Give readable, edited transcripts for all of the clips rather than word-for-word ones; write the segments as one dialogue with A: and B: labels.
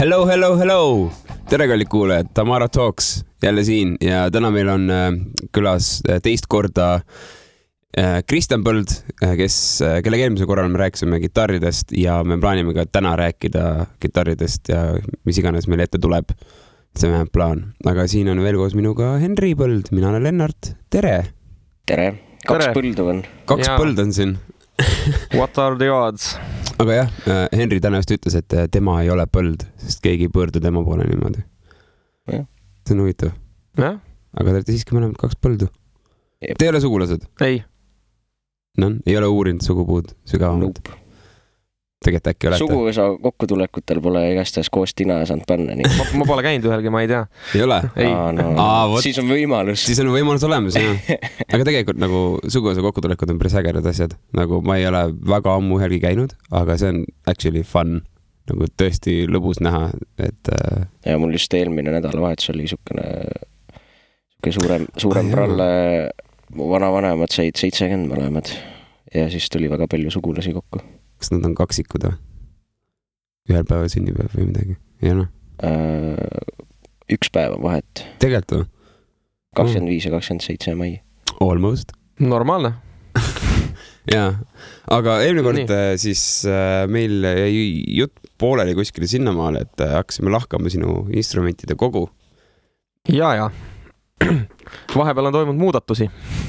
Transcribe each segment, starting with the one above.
A: Hello! Tere kallid kuulajad, Tamara Talks jälle siin ja täna meil on külas teist korda Kristjan Põld, kellega eelmise korral me rääkisime kitarridest ja me plaanime ka täna rääkida kitarridest ja mis iganes meil ette tuleb. See on plaan. Aga siin on veel koos minuga Henri Põld, mina olen Lennart. Tere!
B: Tere! Kaks põldu on.
A: Kaks põld on siin.
C: What are the odds?
A: Aga jah, Henri täna just ütles, et tema ei ole põld, sest keegi ei pöördu tema poole niimoodi.
B: Ja.
A: See on huvitav.
C: Ja?
A: Aga te olete siiski mõlemad kaks põldu.
B: Jep.
A: Te ei ole sugulased?
C: Ei.
A: No, ei ole uurinud sugupuud sügavamalt?
B: Nope.
A: Tegelikult äkki olete?
B: Suguvõsa kokkutulekutel pole igastahes koos tina saanud panna. Nii.
C: Ma pole käinud ühelgi, ma ei tea.
A: Ei ole?
C: Ei.
B: Siis on võimalus.
A: Siis on võimalus olemas, jah. Aga tegelikult nagu suguvõsa kokkutulekud on päris ägedad asjad. Nagu ma ei ole väga ammu ühelgi käinud, aga see on actually fun. Nagu tõesti lõbus näha, et...
B: Ja mul just eelmine nädalavahetus oli suurem pralle. Mu vanavanemad said 70 mõlemad ja siis tuli väga palju sugulasi kokku.
A: Kas nad on kaksikud või? Ühel päeval sünnipäev või midagi? Ja noh?
B: Üks päev on vahet.
A: Tegelikult või?
B: 25 ja 27 mai.
A: Almost.
C: Normaalne.
A: Jaa, aga eelmine kord siis meil jäi jutt pooleli kuskile sinnamaale, et hakkasime lahkama sinu instrumentide kogu.
C: Ja. Vahepeal on toimunud muudatusi.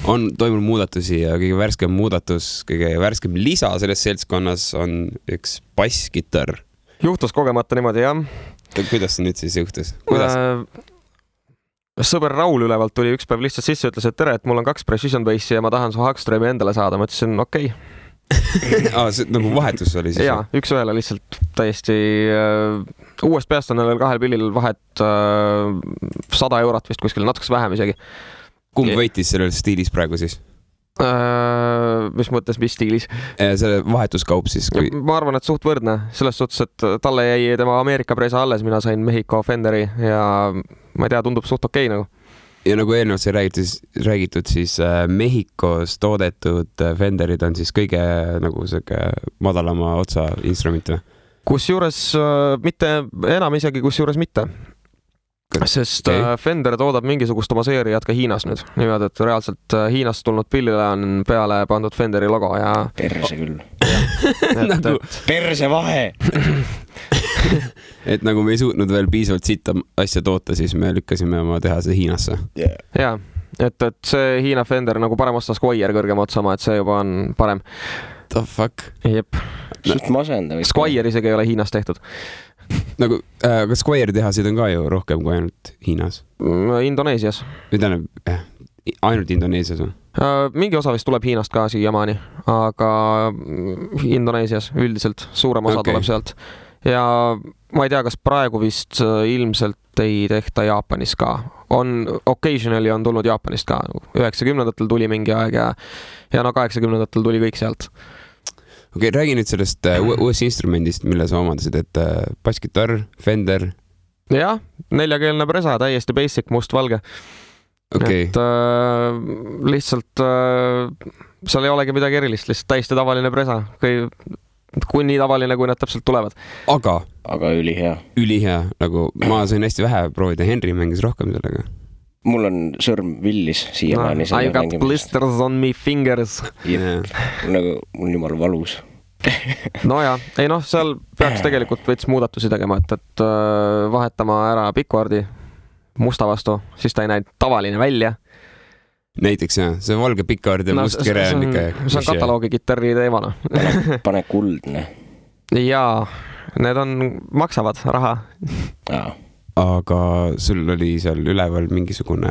A: On toimunud muudatusi ja kõige värskem muudatus, kõige värskem lisa selles seltskonnas on üks basskitarr.
C: Juhtus kogemata niimoodi, jah.
A: Kuidas see nüüd siis juhtus?
C: Sõber Raul ülevalt tuli üks päev lihtsalt sisse ja ütles, et tere, et mul on 2 precision bassi ja ma tahan su Hagströmi endale saada. Ma ütlesin, okei.
A: See nagu vahetus oli siis?
C: Jaa, üks ühele lihtsalt täiesti uuest peast on veel 2 pillil vahet 100 eurot vist kuskil, natuks vähem isegi.
A: Kumb võitis sellel stiilis praegu siis?
C: Mis mõttes, mis stiilis?
A: Selle vahetuskaup siis? Kui...
C: Ma arvan, et suht võrdne. Selles suhtes, et talle jäi tema Ameerika presa alles, mina sain Mexico Fenderi ja ma ei tea, tundub suht okei nagu.
A: Ja nagu eelnevalt sai räägitud, siis Mehhikos toodetud Fenderid on siis kõige nagu madalama otsa instrument või?
C: Kusjuures mitte, enam isegi kusjuures mitte. Sest Fender toodab mingisugust oma seeriat ka Hiinas nüüd. Niimoodi, et reaalselt Hiinast tulnud pillile on peale pandud Fenderi logo ja...
B: Perse küll.
A: Nagu...
B: Perse vahe!
A: Et nagu me ei suutnud veel piisavalt sitta asja toota, siis me lükkasime oma tehase Hiinasse.
B: Yeah.
C: Jaa, et see Hiina Fender nagu parem osta Squire kõrgema otsama, et see juba on parem.
A: The fuck?
C: Jep.
B: Suht masenda.
C: Squire isegi ei ole Hiinas tehtud.
A: Nagu, kas Squire tehasid on ka ju rohkem kui ainult Hiinas?
C: Indoneesias.
A: Ainult Indoneesias on?
C: Mingi osa vist tuleb Hiinast ka siiamaani, aga Indoneesias üldiselt suurem osa tuleb sealt. Ja ma ei tea, kas praegu vist ilmselt ei tehta Jaapanis ka. Occasionally on tulnud Jaapanist ka. 90-ndatel tuli mingi aeg ja no 80-ndatel tuli kõik sealt.
A: Okei, räägi nüüd sellest uuest instrumendist, mille sa omandasid, et basskitarr, Fender.
C: Jah, 4-keelne presa, täiesti basic, must-valge.
A: Okay.
C: Et lihtsalt seal ei olegi midagi erilist, lihtsalt täiesti tavaline presa. Kui nii tavaline, kui nad täpselt tulevad.
B: Aga ülihea.
A: Ülihea, nagu ma sain hästi vähe proovida, Henri mängis rohkem sellega.
B: Mul on sõrm villis siiamaani.
C: I got blisters on me fingers.
B: Nagu mul jumal valus.
C: No ja, ei noh, seal peaks tegelikult veits muudatusi tegema, et vahetama ära pikkvardi musta vastu, siis ta ei näinud tavaline välja.
A: Näiteks jah, see valge pikkaard ja must kere on ikka...
C: See on kataloogi kitarri teemana.
B: Pane kuldne.
C: Jaa, need maksavad raha.
B: Jaa.
A: Aga sul oli seal üleval mingisugune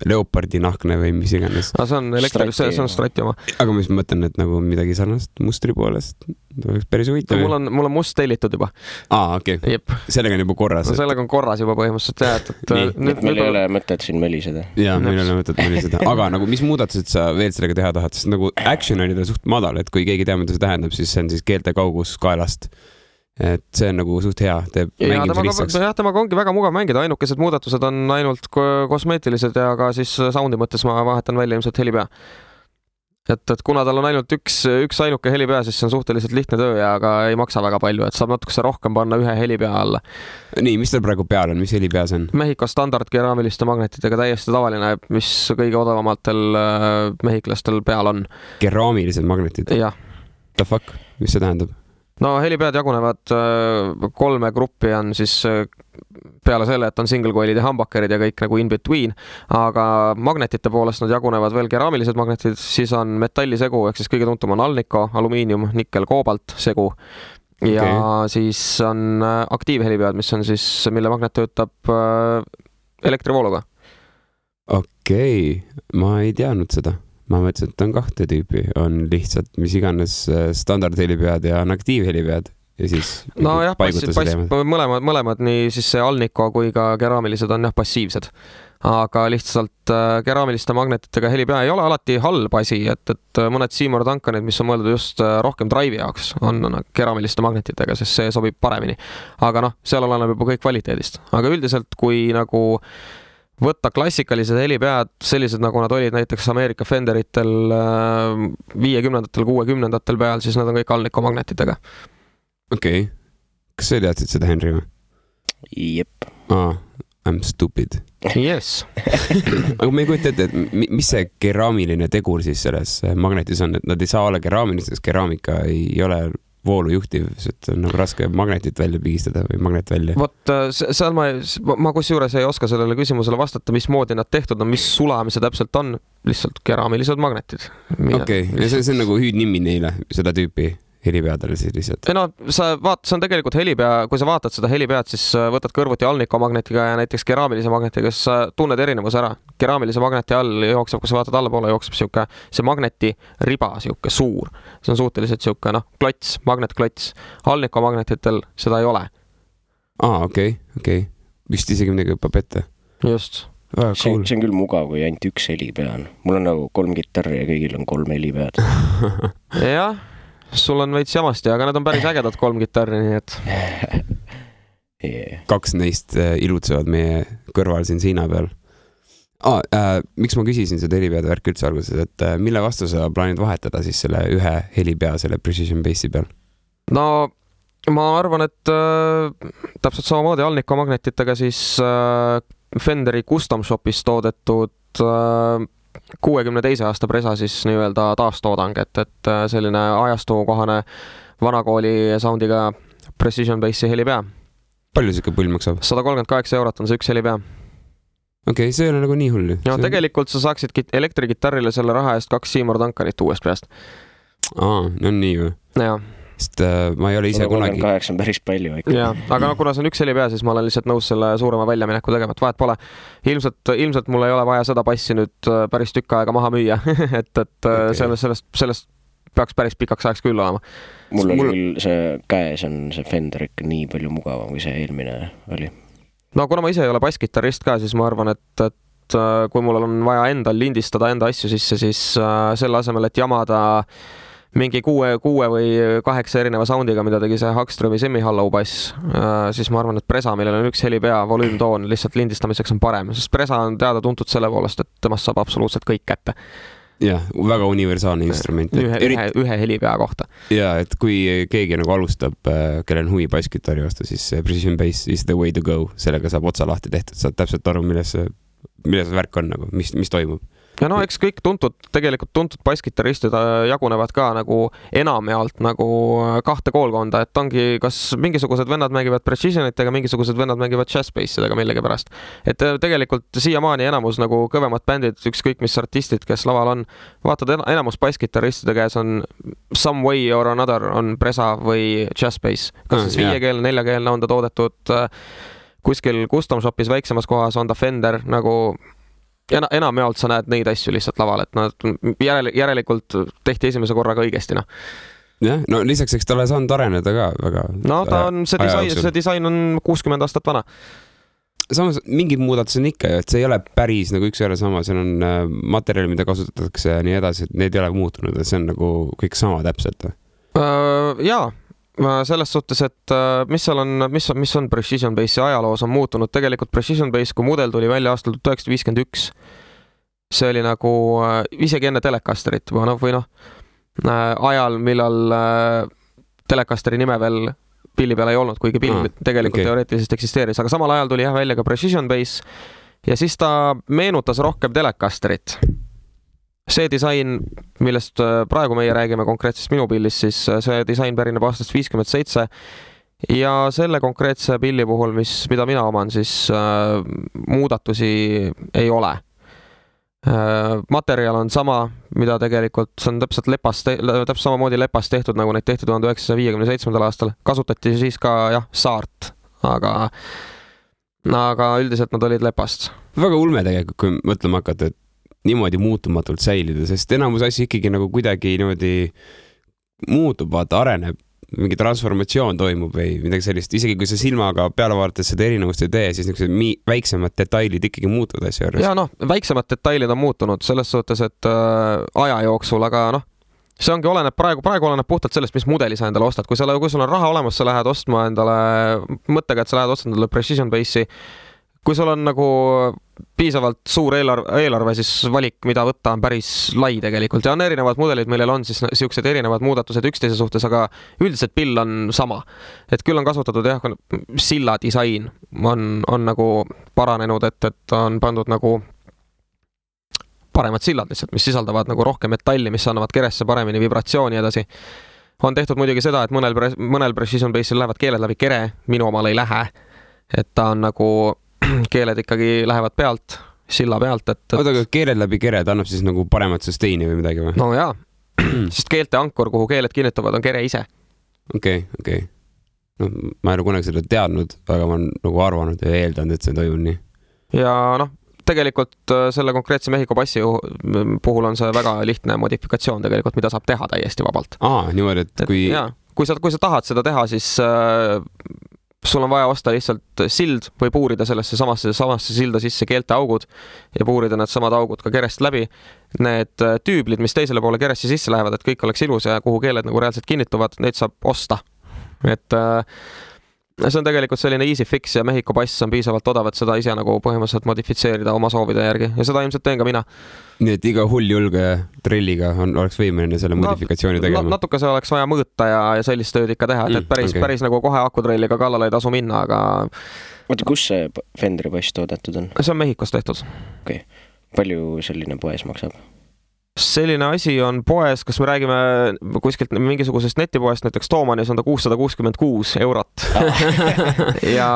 A: leopardi nahkne või mis iganes.
C: See on elektris, see on Strati oma.
A: Aga mis mõtlen, et nagu midagi sarnast mustri poolest oleks päris huvitav.
C: Mul on must tellitud juba.
A: Okei.
C: Jep.
A: Sellega on juba korras.
C: Sellega on korras juba põhimõtteliselt.
B: Meil ei ole mõtet siin meliseda.
A: Jaa, meil ei ole mõtet meliseda. Aga nagu mis muudatused sa veel sellega teha tahad? Sest nagu action oli ta suht madal, et kui keegi teab, mida see tähendab, siis see on siis keelte kaugus kaelast. Et see on nagu suht hea, teeb mängimise lihtsaks.
C: Jah, temaga ongi väga mugav mängida, ainukesed muudatused on ainult kosmeetilised ja ka siis soundi mõttes ma vahetan välja ilmselt helipea. et kuna tal on ainult üks ainuke helipea, siis see on suhteliselt lihtne töö ja aga ei maksa väga palju, et saab natukese rohkem panna ühe helipea alla.
A: Nii, mis tal praegu peal on, mis helipea see on?
C: Mehhiko standard keraamiliste magnetitega täiesti tavaline, mis kõige odavamatel mehhiklastel peal on.
A: Keraamilised magnetid?
C: Jah.
A: The fuck, mis see tähendab?
C: No helipead jagunevad 3 gruppi on siis peale selle, et on single coil'id ja humbuckerid ja kõik nagu in between, aga magnetite poolest nad jagunevad veel keraamilised magnetid, siis on metallisegu, ehk siis kõige tuntum on Alnico, alumiinium, nikkel, koobalt segu ja siis on aktiivhelipead, mis on siis, mille magnet töötab elektrivooluga.
A: Okei, ma ei teadnud seda. Ma mõtlesin, et on 2 tüüpi, on lihtsalt mis iganes standardhelipead ja on aktiivhelipead ja siis
C: no jah, mõlemad, nii siis see Alnico kui ka keraamilised on jah passiivsed, aga lihtsalt keraamiliste magnetitega helipea ei ole alati halb asi, et mõned Seymour Duncanid, mis on mõeldud just rohkem drive'i jaoks, on keraamiliste magnetitega, sest see sobib paremini, aga noh, seal oleneb juba kõik kvaliteedist, aga üldiselt kui nagu võtta klassikalised helipead, sellised nagu nad olid näiteks Ameerika Fenderitel 50-ndatel, 60-ndatel peal, siis nad on kõik Alnico magnetitega.
A: Okei. Kas sa teadsid seda, Henry?
B: Jep.
A: I'm stupid.
C: Yes.
A: Aga me ei kujuta ette, et mis see keraamiline tegur siis selles magnetis on, et nad ei saa olla keraamilised, sest keraamika ei ole voolu juhtiv, et on nagu raske magnetit välja pigistada või magnet välja.
C: Vot seal ma kusjuures ei oska sellele küsimusele vastata, mismoodi nad tehtud on, mis sulamise täpselt on, lihtsalt keraamilised magnetid.
A: Okei, ja see on nagu hüüdnimi neile, seda tüüpi helipeadele siis lihtsalt.
C: No see on tegelikult helipea, kui sa vaatad seda helipead, siis võtad kõrvuti Alnico magnetiga ja näiteks keraamilise magnetiga, siis sa tunned erinevus ära. Keraamilise magneti all jookseb, kui sa vaatad allapoole, jookseb see magneti riba, suur. See on suhteliselt klots, magnetklots. Alnico magnetitel seda ei ole.
A: Okei. Vist isegi midagi õppab ette.
C: Just.
B: See on küll mugav, kui ainult üks helipea on. Mul on nagu 3 kitarri ja kõigil on 3 helipead.
C: Jah. Sul on veits jamasti, aga need on päris ägedad 3 kitarri, nii et...
A: 2 neist ilutsevad meie kõrval siin seina peal. Miks ma küsisin seda helipeade värk üldse alguses, et mille vastu sa plaanid vahetada siis selle ühe helipea selle Precision Bassi peal?
C: No ma arvan, et täpselt samamoodi Alnico magnetitega siis Fenderi Custom Shopis toodetud 62 aasta presa siis nii-öelda taastoodang, et selline ajastukohane vanakooli soundiga Precision Bassi helipea.
A: Palju siuke pull maksab?
C: 138 € on see üks helipea.
A: Okei, see ei ole nagu nii hull.
C: Ja tegelikult sa saaksid elektrikitarrile selle raha eest 2 Seymour Duncanit uuest peast.
A: No nii või?
C: Jaa.
A: Sest ma ei ole ise kunagi...
B: 38 on päris palju ikka.
C: Jaa, aga kuna see on üks helipea, siis ma olen lihtsalt nõus selle suurema väljamineku tegema, et vahet pole. Ilmselt mul ei ole vaja seda passi nüüd päris tükk aega maha müüa, et sellest peaks päris pikaks ajaks küll olema.
B: Mul oli küll see käes on see Fender ikka nii palju mugavam, kui see eelmine oli.
C: No kuna ma ise ei ole basskitarrist ka, siis ma arvan, et kui mul on vaja endal lindistada enda asju sisse, siis selle asemel, et jamada mingi 6 või 8 erineva soundiga, mida tegi see Hagströmi semi-hollow bass, siis ma arvan, et presa, millel on üks helipea, volüümtoon, lihtsalt lindistamiseks on parem, sest presa on teada tuntud selle poolest, et temast saab absoluutselt kõik kätte.
A: Jah, väga universaalne instrument.
C: Ühe helipea kohta.
A: Ja, et kui keegi nagu alustab, kellel on huvi basskitarri vastu, siis Precision Bass is the way to go. Sellega saab otsa lahti tehtud, saad täpselt aru, milles see värk on, nagu, mis toimub.
C: Ja no eks kõik tegelikult tuntud basskitarristid jagunevad ka nagu enamjaolt nagu 2 koolkonda, et ongi kas mingisugused vennad mängivad precisionitega, mingisugused vennad mängivad jazzbassidega millegi pärast. Et tegelikult siiamaani enamus nagu kõvemad bändid, ükskõik mis artistid, kes laval on, vaatad enamus basskitarristide käes on some way or another on presa või jazzbass. Kas siis 5-keelne, 4-keelne on ta toodetud kuskil custom shopis väiksemas kohas, on ta Fender nagu... enamjaolt sa näed neid asju lihtsalt laval, et nad järelikult tehti esimese korraga õigesti.
A: Jah, no lisaks eks talle saanud areneda ka väga.
C: No ta on, see disain on 60 aastat vana.
A: Samas mingid muudatused on ikka, et see ei ole päris nagu üks ära sama, seal on materjali, mida kasutatakse ja nii edasi, et need ei ole muutunud, et see on nagu kõik sama täpselt.
C: Jaa. Selles suhtes, et mis on Precision Bassi ajaloos on muutunud. Tegelikult Precision Bass, kui mudel tuli välja aastal 1951, see oli nagu isegi enne Telecasterit või ajal, millal Telecasteri nime veel pilli peal ei olnud, kuigi pill tegelikult teoreetiliselt eksisteeris, aga samal ajal tuli välja ka Precision Bass ja siis ta meenutas rohkem Telecasterit. See disain, millest praegu meie räägime konkreetsest minu pillist, siis see disain pärineb aastast 57 ja selle konkreetse pilli puhul, mida mina oman, siis muudatusi ei ole. Materjal on sama, mida tegelikult see on täpselt samamoodi lepast tehtud, nagu neid tehti 1957. aastal. Kasutati siis ka saart, aga üldiselt nad olid lepast.
A: Väga ulme tegelikult, kui mõtlema hakata, et niimoodi muutumatult säilida, sest enamus asju ikkagi nagu kuidagi niimoodi muutub, vaata, areneb. Mingi transformatsioon toimub või midagi sellist. Isegi kui sa silmaga peale vaadates seda erinevust ei tee, siis väiksemad detailid ikkagi muutuvad asja juures.
C: Ja väiksemad detailid on muutunud selles suhtes, et aja jooksul, aga see ongi praegu oleneb puhtalt sellest, mis mudeli sa endale ostad. Kui sul on raha olemas, sa lähed ostma endale mõttega, et sa lähed ostma endale Precision Bassi. Kui sul on nagu piisavalt suur eelarve, siis valik, mida võtta, on päris lai tegelikult. Ja on erinevad mudelid, millel on siis siuksed erinevad muudatused üksteise suhtes, aga üldiselt pill on sama. Et küll on kasutatud silla disain on nagu paranenud, et on pandud nagu paremad sillad lihtsalt, mis sisaldavad nagu rohkem metalli, mis annavad keresse paremini vibratsiooni edasi. On tehtud muidugi seda, et mõnel Precision Bassil lähevad keeled läbi kere, minu omal ei lähe. Et ta on nagu keeled ikkagi lähevad pealt, silla pealt.
A: Oota, aga keeled läbi kere, ta annab siis nagu paremat sustaini või midagi või?
C: No jaa, sest keelte ankur, kuhu keeled kinnitavad, on kere ise.
A: Okei. No, ma ei ole kunagi seda teadnud, aga ma olen nagu arvanud ja eeldanud, et see toimub nii. Ja
C: tegelikult selle konkreetse Mehhiko bassi puhul on see väga lihtne modifikatsioon tegelikult, mida saab teha täiesti vabalt.
A: Niimoodi, et kui...
C: Kui sa tahad seda teha, siis sul on vaja osta lihtsalt sild või puurida sellesse samasse silda sisse keelte augud ja puurida need samad augud ka kerest läbi. Need tüüblid, mis teisele poole keresse sisse lähevad, et kõik oleks ilus ja kuhu keeled nagu reaalselt kinnituvad, neid saab osta. Et see on tegelikult selline easy fix ja Mehhiko bass on piisavalt odav, et seda ise nagu põhimõtteliselt modifitseerida oma soovide järgi ja seda ilmselt teen ka mina.
A: Nii et iga hull julge trilliga oleks võimeline selle modifikatsiooni tegema?
C: Natuke see oleks vaja mõõta ja sellist tööd ikka teha, et päris nagu kohe akutrelliga kallale ei tasu minna, aga...
B: Oota, kus see Fenderi bass toodetud on?
C: See on Mehhikos tehtud.
B: Okei. Palju selline poes maksab?
C: Selline asi on poes, kas me räägime kuskilt mingisugusest netipoest, näiteks Toomanis on ta 666 eurot. ja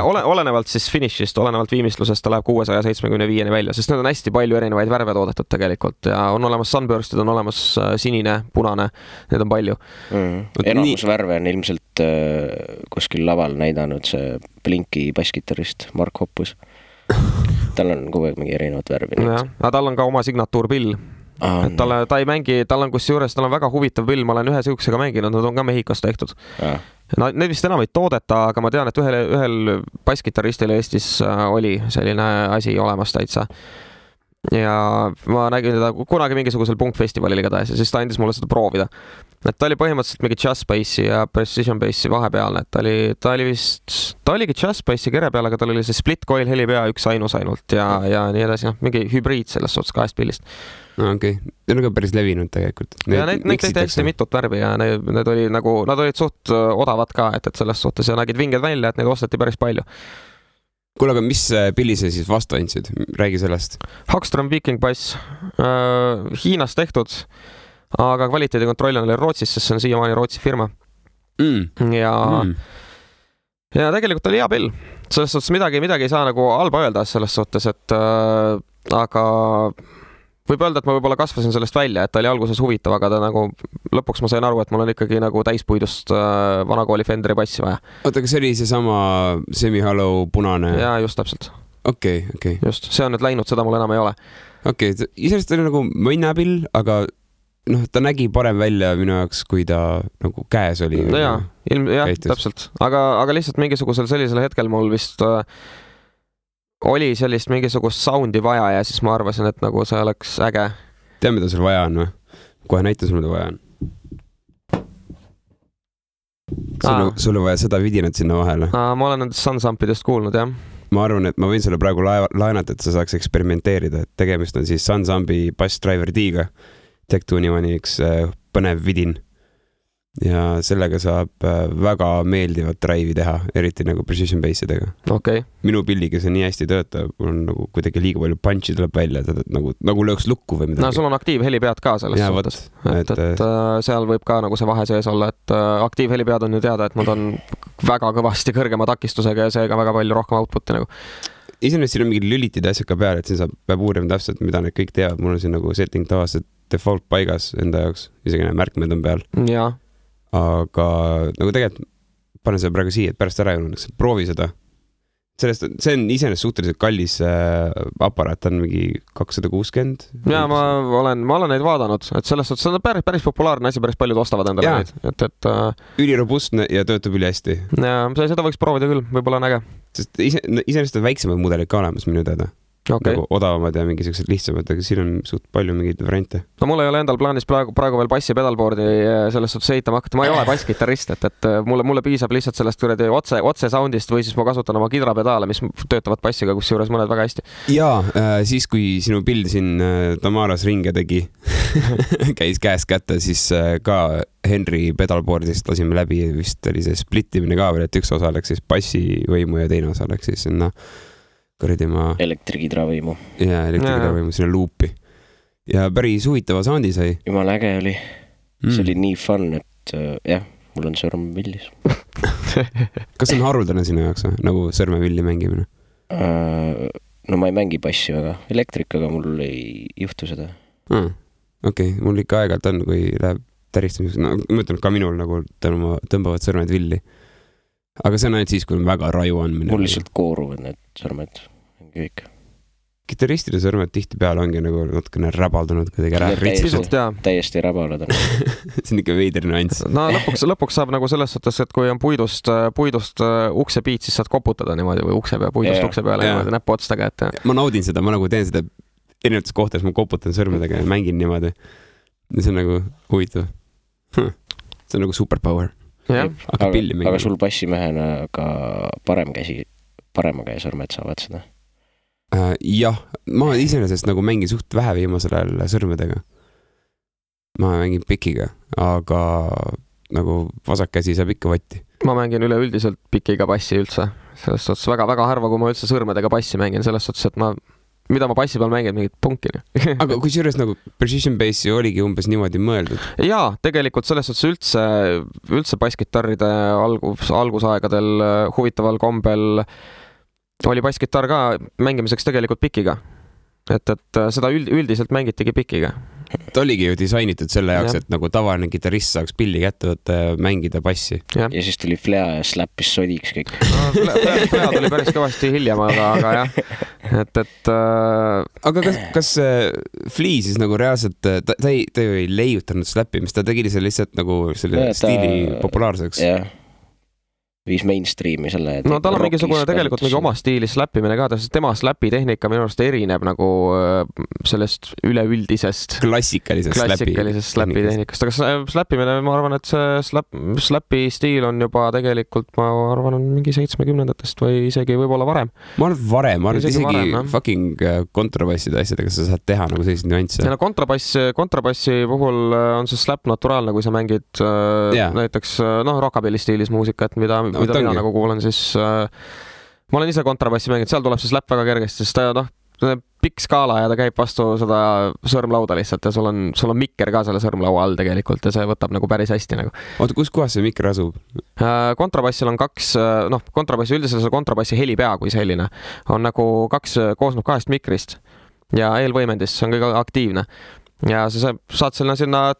C: olenevalt siis finishist, olenevalt viimistlusest ta läheb 675 välja, sest need on hästi palju erinevaid värve toodetud tegelikult ja on olemas sunburstid, on olemas sinine, punane, need on palju.
B: Enamus värve on ilmselt kuskil laval näidanud see Blinki basskitarrist Mark Hoppus. Tal on kogu aeg mingi erinevad värvi.
C: Aga tal on ka oma signatuurpill. Ta ei mängi, tal on kusjuures, tal on väga huvitav pill, ma olen ühe siuksega mänginud, nad on ka Mehhikos tehtud. Need vist enam ei toodeta, aga ma tean, et ühel basskitarristil Eestis oli selline asi olemas täitsa. Ja ma nägin teda kunagi mingisugusel punkfestivalil igatahes ja siis ta andis mulle seda proovida. Et ta oli põhimõtteliselt mingi jazz bassi ja precision bassi vahepealne, et ta oligi jazz bassi kere peal, aga tal oli see split coil helipea üks ainus ainult ja nii edasi, mingi hübriid selles suhtes 2 pillist.
A: Okei. Need on ka päris levinud tegelikult.
C: Ja neid tehti hästi mitut värvi ja need olid suht odavad ka, et selles suhtes ja nägid vinged välja, et neid osteti päris palju.
A: Kuule, aga mis pilli sa siis vastu andsid? Räägi sellest.
C: Hagström Viking bass. Hiinas tehtud, aga kvaliteedikontroll oli Rootsis, sest see on siiamaani Rootsi firma. Ja tegelikult oli hea pill. Selles suhtes midagi ei saa nagu halba öelda selles suhtes, et aga võib öelda, et ma võib-olla kasvasin sellest välja, et ta oli alguses huvitav, aga ta nagu lõpuks ma sain aru, et mul on ikkagi nagu täispuidust vanakooli Fenderi bassi vaja.
A: Oota, kas see oli see sama semi-hollow punane?
C: Jaa, just täpselt.
A: Okei.
C: Just, see on nüüd läinud, seda mul enam ei ole.
A: Okei, isest oli nagu mõnnapill, aga ta nägi parem välja minu jaoks, kui ta nagu käes oli.
C: Jaa, täpselt. Aga lihtsalt mingisugusel sellisel hetkel mul vist oli sellist mingisugust soundi vaja ja siis ma arvasin, et nagu see oleks äge.
A: Tea, mida sul vaja on või? Kohe näita sul, mida vaja on. Sul on vaja seda vidinat sinna vahele.
C: Ma olen nendest sunsampidest kuulnud, jah.
A: ma arvan, et ma võin sulle praegu laenata, et sa saaks eksperimenteerida, et tegemist on siis Sunsambi Bass Driver D-ga. Tech2 üks põnev vidin. Ja sellega saab väga meeldivat drive'i teha, eriti nagu precision bassidega.
C: Okay.
A: Minu pilliga see nii hästi töötab, mul on nagu kuidagi liiga palju punchi tuleb välja, nagu lööks lukku või midagi.
C: No sul on aktiivhelipead ka selles suhtes. Et seal võib ka nagu see vahe sees olla, et aktiivhelipead on ju teada, et nad on väga kõvasti kõrgema takistusega ja seega väga palju rohkem output'i nagu.
A: Iseenesest siin on mingid lülitid asjad ka peal, et siin peab uurima täpselt, mida need kõik teavad. Mul on siin nagu setting tavaliselt default paigas enda jaoks, isegi need märkmed on peal.
C: Jaa.
A: Aga nagu tegelikult panen seda praegu siia, et pärast ära jõunaks. Proovi seda. See on iseenesest suhteliselt kallis aparaat, ta on mingi 260.
C: Jaa, ma olen neid vaadanud, et sellest on päris populaarne asi, päris paljud ostavad endale neid.
A: Ülirobustne ja töötab üli hästi.
C: Jaa, seda võiks proovida küll, võib-olla on äge.
A: Sest iseenesest on väiksemad mudelid ka olemas minu teada.
C: Okay.
A: Nagu odavamad ja mingisugused lihtsamad, aga siin on suht palju mingeid variante.
C: No mul ei ole endal plaanis praegu veel bassi pedalboardi sellest suhtes ehitama hakata. Ma ei ole bassgitarrist, et mulle piisab lihtsalt sellest kuradi otse soundist või siis ma kasutan oma kidrapedaale, mis töötavad bassiga, kus juures mõned väga hästi.
A: Jaa, siis kui sinu pild siin Tamaras ringe tegi, käis käest kätte, siis ka Henry pedalboardist lasime läbi, vist oli see splittimine ka veel, et üks osa läks siis bassivõimu ja teine osa läks siis sinna
B: elektrikidravõimu.
A: Jaa, elektrikidravõimu sinna luupi. Ja päris huvitava soundi sai.
B: Jumal äge oli. See oli nii fun, et jah, mul on sõrmevillis.
A: Kas on haruldane sinu jaoks, nagu sõrmevilli mängimine?
B: No ma ei mängi bassi väga. Elektrikaga mul ei juhtu seda.
A: Okei, mul ikka aegalt on, kui läheb täristamiseks. No, ma ütlen, ka minul nagu tõmbavad sõrmed villi. Aga see on ainult siis, kui on väga raju andmine.
B: Mul lihtsalt kooruvad need sõrmed. Kõik.
A: Gitarristide sõrmed tihti peal ongi nagu natukene räbaldunud kuidagi ära.
B: Täiesti räbalad on.
A: See on ikka veider nüanss.
C: No lõpuks saab nagu selles suhtes, et kui on puidust uksepiit, siis saad koputada niimoodi või puidust ukse peale niimoodi näppu otstega.
A: Ma naudin seda, ma nagu teen seda erinevates kohtades, ma koputan sõrmedega ja mängin niimoodi. Ja see on nagu huvitav. See on nagu superpower.
B: Aga sul bassimehena ka parema käe sõrmed saavad seda?
A: Jah, ma iseenesest nagu mängin suht vähe viimasel ajal sõrmedega. Ma mängin pikiga, aga nagu vasak käsi saab ikka vatti.
C: Ma mängin üleüldiselt pikiga bassi üldse. Selles suhtes väga harva, kui ma üldse sõrmedega bassi mängin, selles suhtes, et mida ma bassi peal mängin, mingit punkini.
A: Aga kui juures nagu precision bassi oligi umbes niimoodi mõeldud?
C: Jaa, tegelikult selles suhtes üldse basskitarride algusaegadel huvitaval kombel oli basskitarr ka mängimiseks tegelikult pikiga. Et seda üldiselt mängitigi pikiga.
A: Ta oligi ju disainitud selle jaoks, et nagu tavaline gitarrist saaks pilli kätte võtta ja mängida bassi.
B: Ja siis tuli Flea ja slappis sodiks kõik.
C: Flea tuli päris kõvasti hiljem, aga jah.
A: Aga kas Flea siis nagu reaalselt, ta ju ei leiutanud slappimist, ta tegi selle lihtsalt nagu selle stiili populaarseks?
B: Jah. Viis mainstreami selle.
C: No tal on mingisugune tegelikult mingi oma stiilis slappimine ka, tema slapitehnika minu arust erineb nagu sellest üleüldisest
A: klassikalisest
C: slapitehnikast, aga slappimine, ma arvan, et see slappi stiil on juba tegelikult, ma arvan, on mingi 70-ndatest või isegi võib-olla varem.
A: Ma arvan isegi fucking kontrabasside asjadega sa saad teha nagu sellised nüansse.
C: Ja no kontrabassi puhul on see slap naturaalne, kui sa mängid näiteks rockabilly stiilis muusikat, mida mina nagu kuulen, siis ma olen ise kontrabassi mänginud, seal tuleb see slap väga kergesti, sest ta pikk skaala ja ta käib vastu seda sõrmlauda lihtsalt ja sul on mikker ka selle sõrmlaua all tegelikult ja see võtab nagu päris hästi nagu.
A: Oota, kus kohas see mikker asub?
C: Kontrabassil on kontrabassi üldiselt see kontrabassi helipea kui selline on nagu koosneb 2 mikrist ja eelvõimendist, see on kõige aktiivne. Ja sa saad sinna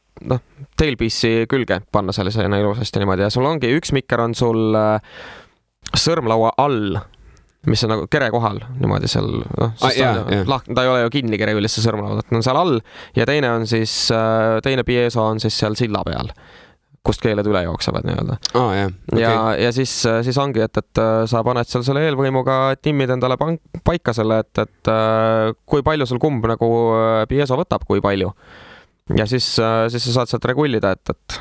C: tailpiece'i külge panna sellisena ilusasti niimoodi ja sul ongi üks mikker on sul sõrmlaua all, mis on nagu kere kohal niimoodi seal, ta ei ole ju kinni kere üldse sõrmlaud, et on seal all ja teine on siis, teine pieso on siis seal silla peal, kust keeled üle jooksevad nii-öelda. Ja siis ongi, et sa paned seal selle eelvõimuga, timmid endale paika selle, et kui palju sul kumb nagu pieso võtab, kui palju. Ja siis sa saad sealt regullida, et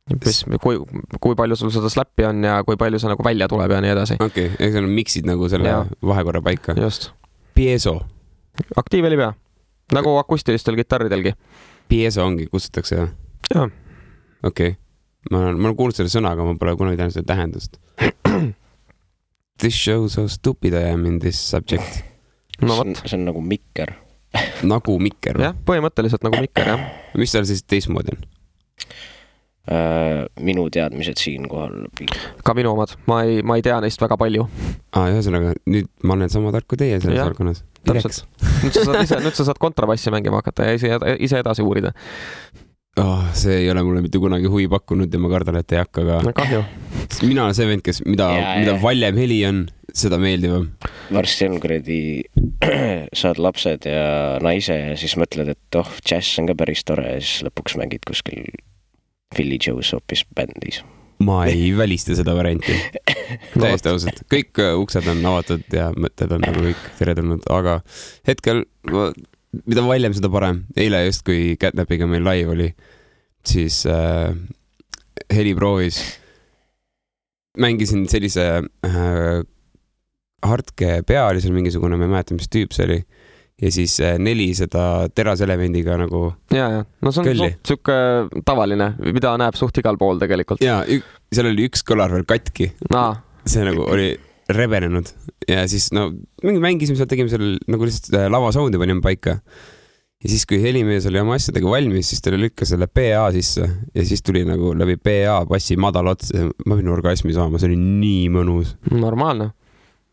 C: kui palju sul seda slappi on ja kui palju see nagu välja tuleb ja nii edasi.
A: Okei, eks on miksid nagu selle vahekorra paika.
C: Just.
A: Piezo.
C: Aktiivheli pea, nagu akustilistel kitarridelgi.
A: Piezo ongi, kutsutakse jah?
C: Jah.
A: Okei. Ma olen kuulnud selle sõna, aga ma pole kunagi tähendanud seda tähendust. This show so stupid I am in this subject.
C: No võt.
B: See on nagu mikker.
A: Nagu mikker?
C: Jah, põhimõtteliselt nagu mikker, jah.
A: Mis seal siis teistmoodi on?
B: Minu teadmised siin kohal.
C: Ka minu omad. Ma ei tea neist väga palju.
A: Ühesõnaga, nüüd ma olen sama tark kui teie selles valdkonnas.
C: Täpselt. Nüüd sa saad kontrabassi mängima hakata ja ise edasi uurida.
A: See ei ole mulle mitte kunagi huvi pakkunud ja ma kardan, et ei hakka ka.
C: Kahju.
A: Mina olen see vend, kes mida valjem heli on, seda meeldivam.
B: Varsti on kuradi saad lapsed ja naise ja siis mõtled, et jazz on ka päris tore ja siis lõpuks mängid kuskil Philly Joe's hoopis bändis. Ma
A: ei välista seda varianti. Täiesti ausalt. Kõik uksed on avatud ja mõtted on nagu kõik teretulnud, aga hetkel, mida valjem, seda parem. Eile just, kui Catnapiga meil live oli, siis heli proovis. Mängisin sellise Hartke pea oli seal mingisugune, ma ei mäleta, mis tüüp see oli. Ja siis 4 seda teraselemendiga nagu
C: ja. No see on suke tavaline, mida näeb suht igal pool tegelikult.
A: Ja, seal oli üks kõlar veel katki. See nagu oli rebenenud. Ja siis mängisime seal, tegime seal nagu lihtsalt lava soundi panime paika. Ja siis, kui helimees oli oma asjadega valmis, siis ta lükkas selle PA sisse. Ja siis tuli nagu läbi PA bassi madal ots. Ma pidin orgasmi saama, see oli nii mõnus.
C: Normaalne.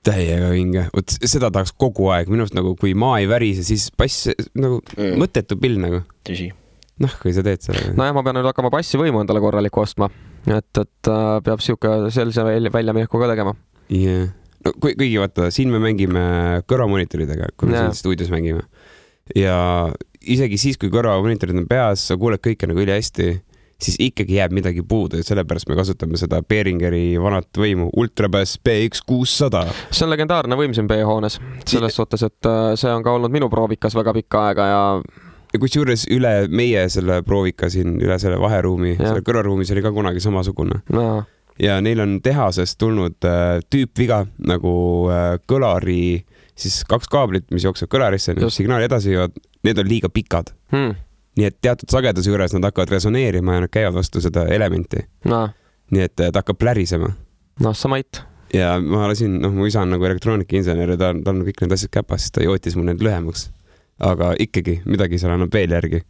A: Täiega vinge. Seda tahaks kogu aeg. Minust nagu, kui maa ei värise, siis bass nagu mõttetu pill nagu.
B: Tõsi.
A: Kui sa teed selle.
C: No ja ma pean nüüd hakkama bassi võimu endale korraliku ostma. Et peab siuke sellise väljamineku ka tegema.
A: Yeah. No, kuigi vaata, siin me mängime kõrvamonitoridega, kui me siin stuudios mängime. Ja isegi siis, kui kõrvamonitorid on peas, sa kuuled kõike nagu üli hästi, siis ikkagi jääb midagi puudu ja sellepärast me kasutame seda Behringeri vanat võimu Ultrabass BX600.
C: See on legendaarne võim siin B-hoones. Selles suhtes, et see on ka olnud minu proovikas väga pikka aega ja
A: kus juures üle meie selle proovika siin, üle selle vaheruumi, selle kõrvaruumis oli ka kunagi samasugune. Ja neil on tehasest tulnud tüüpviga nagu kõlari, siis 2 kaablit, mis jookseb kõlarisse, signaali edasi ja need on liiga pikad. Nii et teatud sageduse juures nad hakkavad resoneerima ja nad käivad vastu seda elementi. Nii et ta hakkab plärisema.
C: Samait.
A: Ja ma lasin, mu isa on nagu elektroonikainsener ja ta on kõik need asjad käpas, siis ta jootis mul need lühemaks. Aga ikkagi, midagi seal annab veel järgi.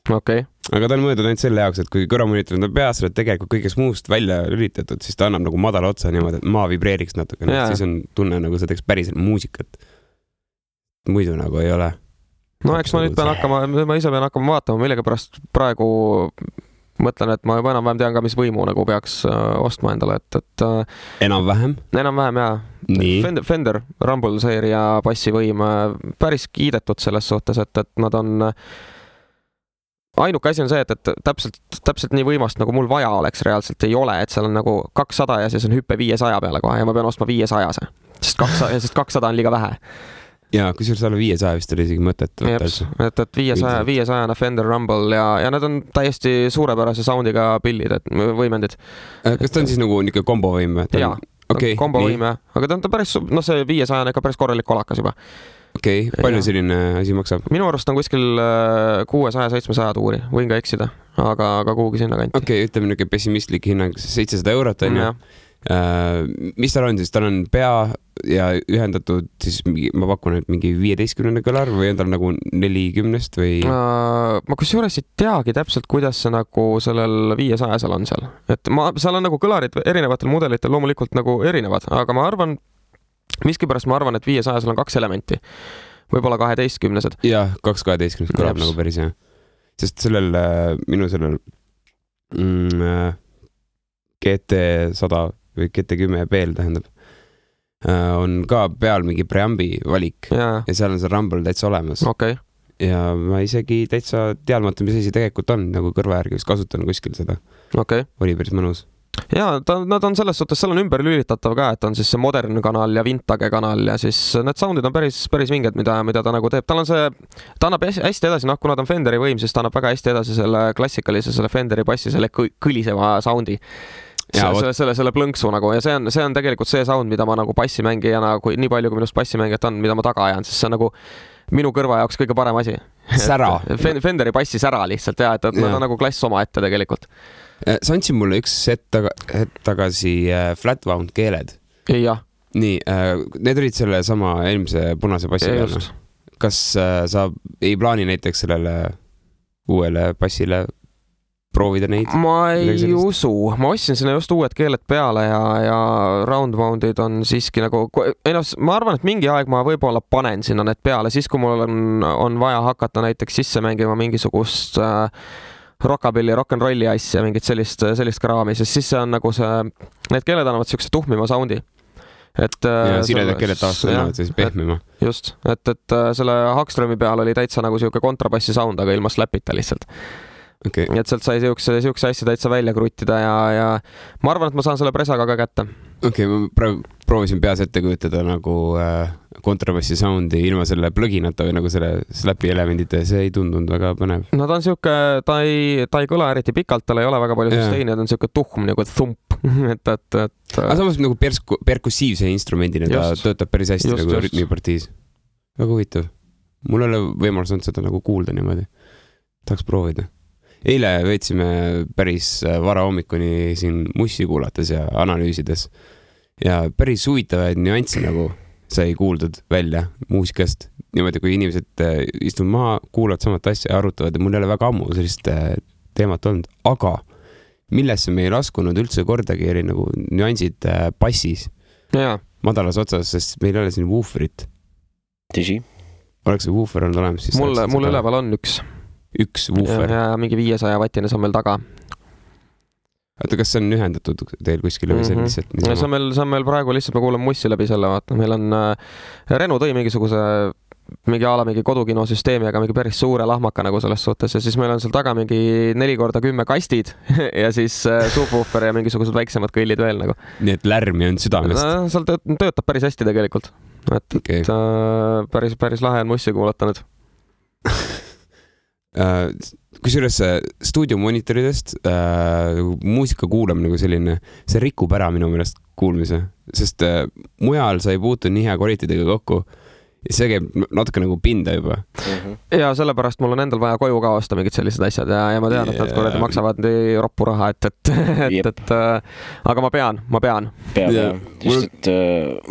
C: Okay.
A: Aga ta on mõeldud ainult selle jaoks, et kui kõrvamonitorid on peas, oled tegelikult kõigest muust välja lülitatud, siis ta annab nagu madala otsa niimoodi, et maa vibreeriks natuke. Siis on tunne nagu sa teeks päriselt muusikat. Muidu nagu ei ole.
C: No eks ma nüüd ma ise pean hakkama vaatama, millega pärast praegu mõtlen, et ma juba enam-vähem tean ka, mis võimu nagu peaks ostma endale, et
A: Enam-vähem?
C: Enam-vähem, jaa. Fender Rumble seeria bassivõim päris kiidetud selles suhtes, et nad on ainuke asi on see, et täpselt nii võimast, nagu mul vaja oleks reaalselt ei ole, et seal on nagu 200 ja siis on hüppe 500 peale kohe ja ma pean ostma 500-se, sest 200 on liiga vähe.
A: Ja kui sul alla 500 vist oli isegi mõtet.
C: Et 500 Fender Rumble ja need on täiesti suurepärase soundiga pillid, et võimendid.
A: Kas ta on siis nagu niisugune kombovõim?
C: Jaa, kombovõim, aga ta on päris, see 500 on ikka päris korralik kolakas juba.
A: Okei, palju selline asi maksab?
C: Minu arust on kuskil 600-700 tuuri, võin ka eksida, aga kuhugi sinna kanti.
A: Okei, ütleme niisugune pessimistlik hinnang, 700 eurot on ju. Mis tal on siis? Tal on pea ja ühendatud siis ma pakun, et mingi 15 kõlar või on tal nagu 40 või?
C: Ma kusjuures ei teagi täpselt, kuidas see nagu sellel 500-sel on seal. Et seal on nagu kõlarid erinevatel mudelitel loomulikult nagu erinevad, aga ma arvan, miskipärast ma arvan, et 500-sel on 2 elementi. Võib-olla 12-sed.
A: Jah, 2 12 kõlab nagu päris jah. Sest minu sellel GT100 või GT10 PL tähendab, on ka peal mingi preambi valik ja seal on see Rumble täitsa olemas.
C: Okay.
A: Ja ma isegi täitsa teadmata, mis asi tegelikult on, nagu kõrva järgi vist kasutan kuskil seda.
C: Okay.
A: Oli päris mõnus.
C: Jaa, nad on selles suhtes, seal on ümber lülitatav ka, et on siis see modern kanal ja vintage kanal ja siis need soundid on päris vinged, mida ta nagu teeb. Tal on see, ta annab hästi edasi, kuna ta on Fenderi võim, siis ta annab väga hästi edasi selle klassikalise, selle Fenderi bassi, selle kõliseva soundi. Selle plõnksu nagu ja see on tegelikult see sound, mida ma nagu bassimängijana, nii palju kui minust bassimängijat on, mida ma taga ajan, siis see on nagu minu kõrva jaoks kõige parem asi.
A: Sära.
C: Fenderi bassi sära lihtsalt ja, et nad on nagu klass oma ette tegelikult.
A: Sa andsid mulle üks hetk tagasi Flatwound keeled.
C: Jah.
A: Nii, need olid selle sama eelmise punase bassi peal. Kas sa ei plaani näiteks sellele uuele bassile proovida neid?
C: Ma ei usu. Ma ostsin sinna just uued keeled peale ja roundwoundid on siiski nagu... ma arvan, et mingi aeg ma võib-olla panen sinna need peale, siis kui mul on vaja hakata näiteks sisse mängima mingisugust... rockabilly, rock'n'rolli asja, mingit sellist kraami, sest siis see on nagu need keeled annavad siukse tuhmima soundi.
A: Ja siredad keeled taas annavad siis pehmima.
C: Just, et selle Hagströmi peal oli täitsa nagu siuke kontrabassi sound, aga ilma slapita lihtsalt.
A: Okay.
C: Et sealt sai siukse asja täitsa välja kruttida ja ma arvan, et ma saan selle presaga ka kätte.
A: Okei, ma praegu proovisin peas ette kujutada nagu kontrabassi soundi ilma selle plõginata või nagu selle slapi elemendite, see ei tundunud väga põnev.
C: No ta on siuke, ta ei kõla eriti pikalt, tal ei ole väga palju susteini, ta on siuke tuhm nagu thump.
A: Aga samas nagu perkussiivse instrumendina ta töötab päris hästi nagu rütmipartiis. Väga huvitav. Mul ei ole võimalus olnud seda nagu kuulda niimoodi. Tahaks proovida. Eile veetsime päris vara hommikuni siin mussi kuulates ja analüüsides ja päris huvitavaid nüansse nagu sai kuuldud välja muusikast. Niimoodi, kui inimesed istuvad maha, kuulavad samat asja ja arutavad ja mul ei ole väga ammu sellist teemat olnud, aga millesse me ei laskunud üldse kordagi eri nagu nüansid bassis madalas otsas, sest meil ei ole siin wooferit.
B: Tõsi?
A: Oleks see woofer olnud olemas siis?
C: Mul üleval on
A: üks woofer.
C: Ja mingi 500 vatine, see on meil taga.
A: Oota, kas see on ühendatud teil kuskile või see on lihtsalt?
C: See on meil praegu lihtsalt, me kuuleme mussi läbi selle, vaata. Meil on Renu tõi mingi kodukinosüsteemi, aga mingi päris suure lahmaka nagu selles suhtes ja siis meil on seal taga mingi 4x10 kastid ja siis subwoofer ja mingisugused väiksemad kõllid veel nagu.
A: Nii et lärmi on südamest?
C: Seal töötab päris hästi tegelikult. Et päris lahe on mussi kuulata nüüd.
A: Kusjuures stuudiomoniitoridest muusika kuulam nagu selline, see rikub ära minu meelest kuulmise, sest mujal sa ei puutu nii hea kvaliteediga kokku ja see käib natuke nagu pinda juba.
C: Ja sellepärast mul on endal vaja koju ka osta mingid sellised asjad ja ma tean, et nad kuradi maksavad nii roppu raha, aga ma pean.
B: Just, et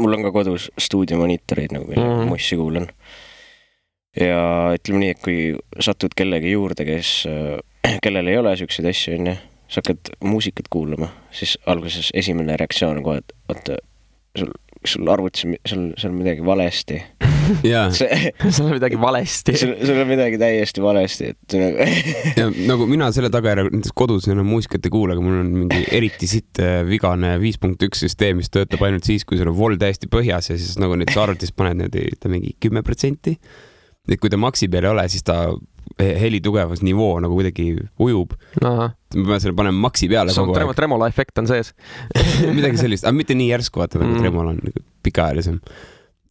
B: mul on ka kodus stuudiomonitorid nagu millega mussi kuulan. Ja ütleme nii, et kui satud kellegi juurde, kellel ei ole siukseid asju, sa hakkad muusikat kuulama, siis alguses esimene reaktsioon on kohe, et oota, sul arvutis, sul on midagi valesti.
C: Sul on midagi valesti.
B: Sul on midagi täiesti valesti.
A: Ja nagu mina selle tagajärg kodus enam muusikat ei kuule, aga mul on mingi eriti sitt vigane 5.1 süsteem, mis töötab ainult siis, kui sul on vol täiesti põhjas ja siis nagu nüüd arvutis paned mingi 10%. Et kui ta maksi peal ei ole, siis ta heli tugevus nivoo nagu kuidagi ujub. Ma pean selle panema maksi peale kogu aeg.
C: Tremola efekt on sees.
A: Midagi sellist, aga mitte nii järsku vaata, nagu Tremola on pikaajalisem.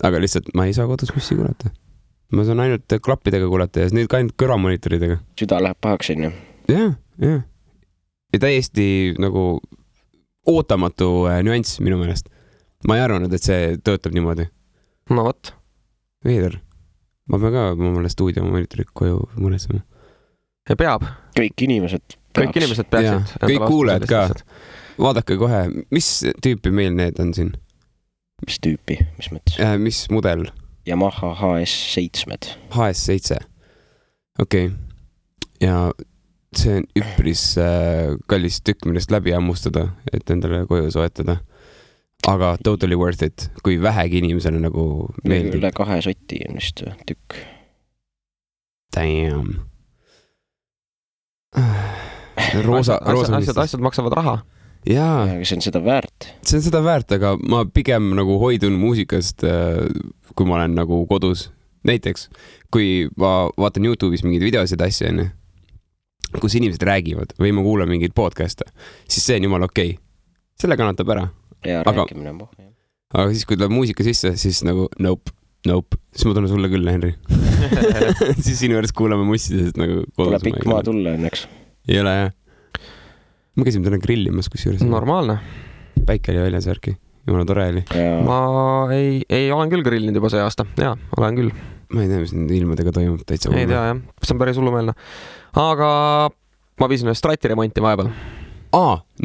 A: Aga lihtsalt ma ei saa kodus mussi kuulata. Ma saan ainult klappidega kuulata ja nüüd ka ainult kõrvamonitoridega.
B: Süda läheb pahaks, on ju?
A: Jah. Ja täiesti nagu ootamatu nüanss minu meelest. Ma ei arvanud, et see töötab niimoodi.
C: No võt.
A: Veider. Ma pean ka mulle stuudiomoniitorid koju mõnesema.
C: Ja peab.
B: Kõik inimesed
C: peaksid.
A: Kõik kuuled ka. Vaadake kohe, mis tüüpi meil need on siin?
B: Mis tüüpi? Mis mõttes?
A: Mis mudel?
B: Yamaha HS7.
A: HS7. Okei. Ja see on üpris kallis tükk, millest läbi ammustada, et endale koju soetada. Aga totally worth it, kui vähegi inimesele nagu meeldib.
B: Üle 2 sotti on vist tükk.
A: Damn.
C: Asjad maksavad raha.
A: Jaa.
B: See on seda väärt.
A: See on seda väärt, aga ma pigem nagu hoidun muusikast, kui ma olen nagu kodus. Näiteks, kui ma vaatan YouTube'is mingeid videosid asja, kus inimesed räägivad või ma kuulan mingeid podcast'e, siis see on jumal okei. selle kannatab ära.
B: Ja rääkimine on pohv.
A: Aga siis, kui tuleb muusika sisse, siis nagu nope, siis ma tunnen sulle küll, Henri. Siis sinu juures kuulame mussidest nagu kodus.
B: Pole pikk maa tulla õnneks.
A: Ei ole, jah. Ma käisin täna grillimas, kus juures.
C: Normaalne.
A: Päike oli väljas värki. Jumala tore oli.
C: Ma ei olen küll grillinud juba see aasta. Jaa, olen küll.
A: Ma ei tea, mis nüüd ilmadega toimub täitsa.
C: Ei tea, jah. See on päris hullumeelne. Aga ma viisin ühe strati remonti vahepeal.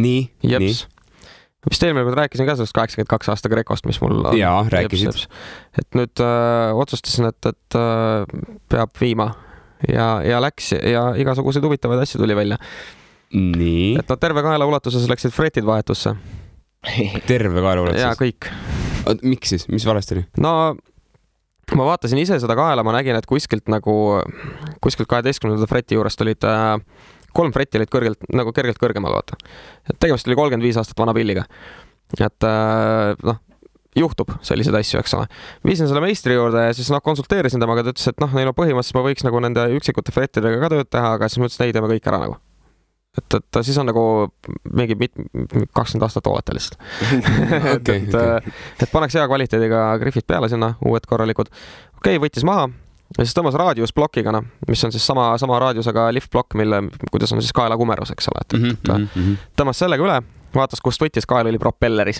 A: Nii.
C: Jeps. Vist eelmine kord rääkisin ka sellest 82 aasta Grecost, mis mul on.
A: Jaa, rääkisid.
C: Et nüüd otsustasin, et peab viima ja läks ja igasuguseid huvitavaid asju tuli välja.
A: Nii.
C: Et terve kaela ulatuses läksid fretid vahetusse.
A: Terve kaela ulatuses?
C: Jaa, kõik.
A: Miks siis? Mis valesti oli?
C: No, ma vaatasin ise seda kaela, ma nägin, et kuskilt 12. freti juurest olid 3 fretti olid kergelt kõrgemal, vaata. Et tegemist oli 35 aastat vana pilliga. Et juhtub selliseid asju, eks ole. Viisin selle meistri juurde ja siis konsulteerisin temaga, ta ütles, et neil on põhimõtteliselt ma võiks nende üksikute frettidega ka tööd teha, aga siis ma ütlesin, ei teeme kõik ära nagu. Et siis on nagu mingi 20 aastat ooleta lihtsalt. Et paneks hea kvaliteediga griffid peale sinna, uued korralikud. Okei, võttis maha. Ja siis tõmbas raadiusplokiga, mis on siis sama raadiusega liftblokk, kuidas on siis kaela kumerus, eks ole. Tõmbas sellega üle, vaatas, kust võttis, kael oli propelleris.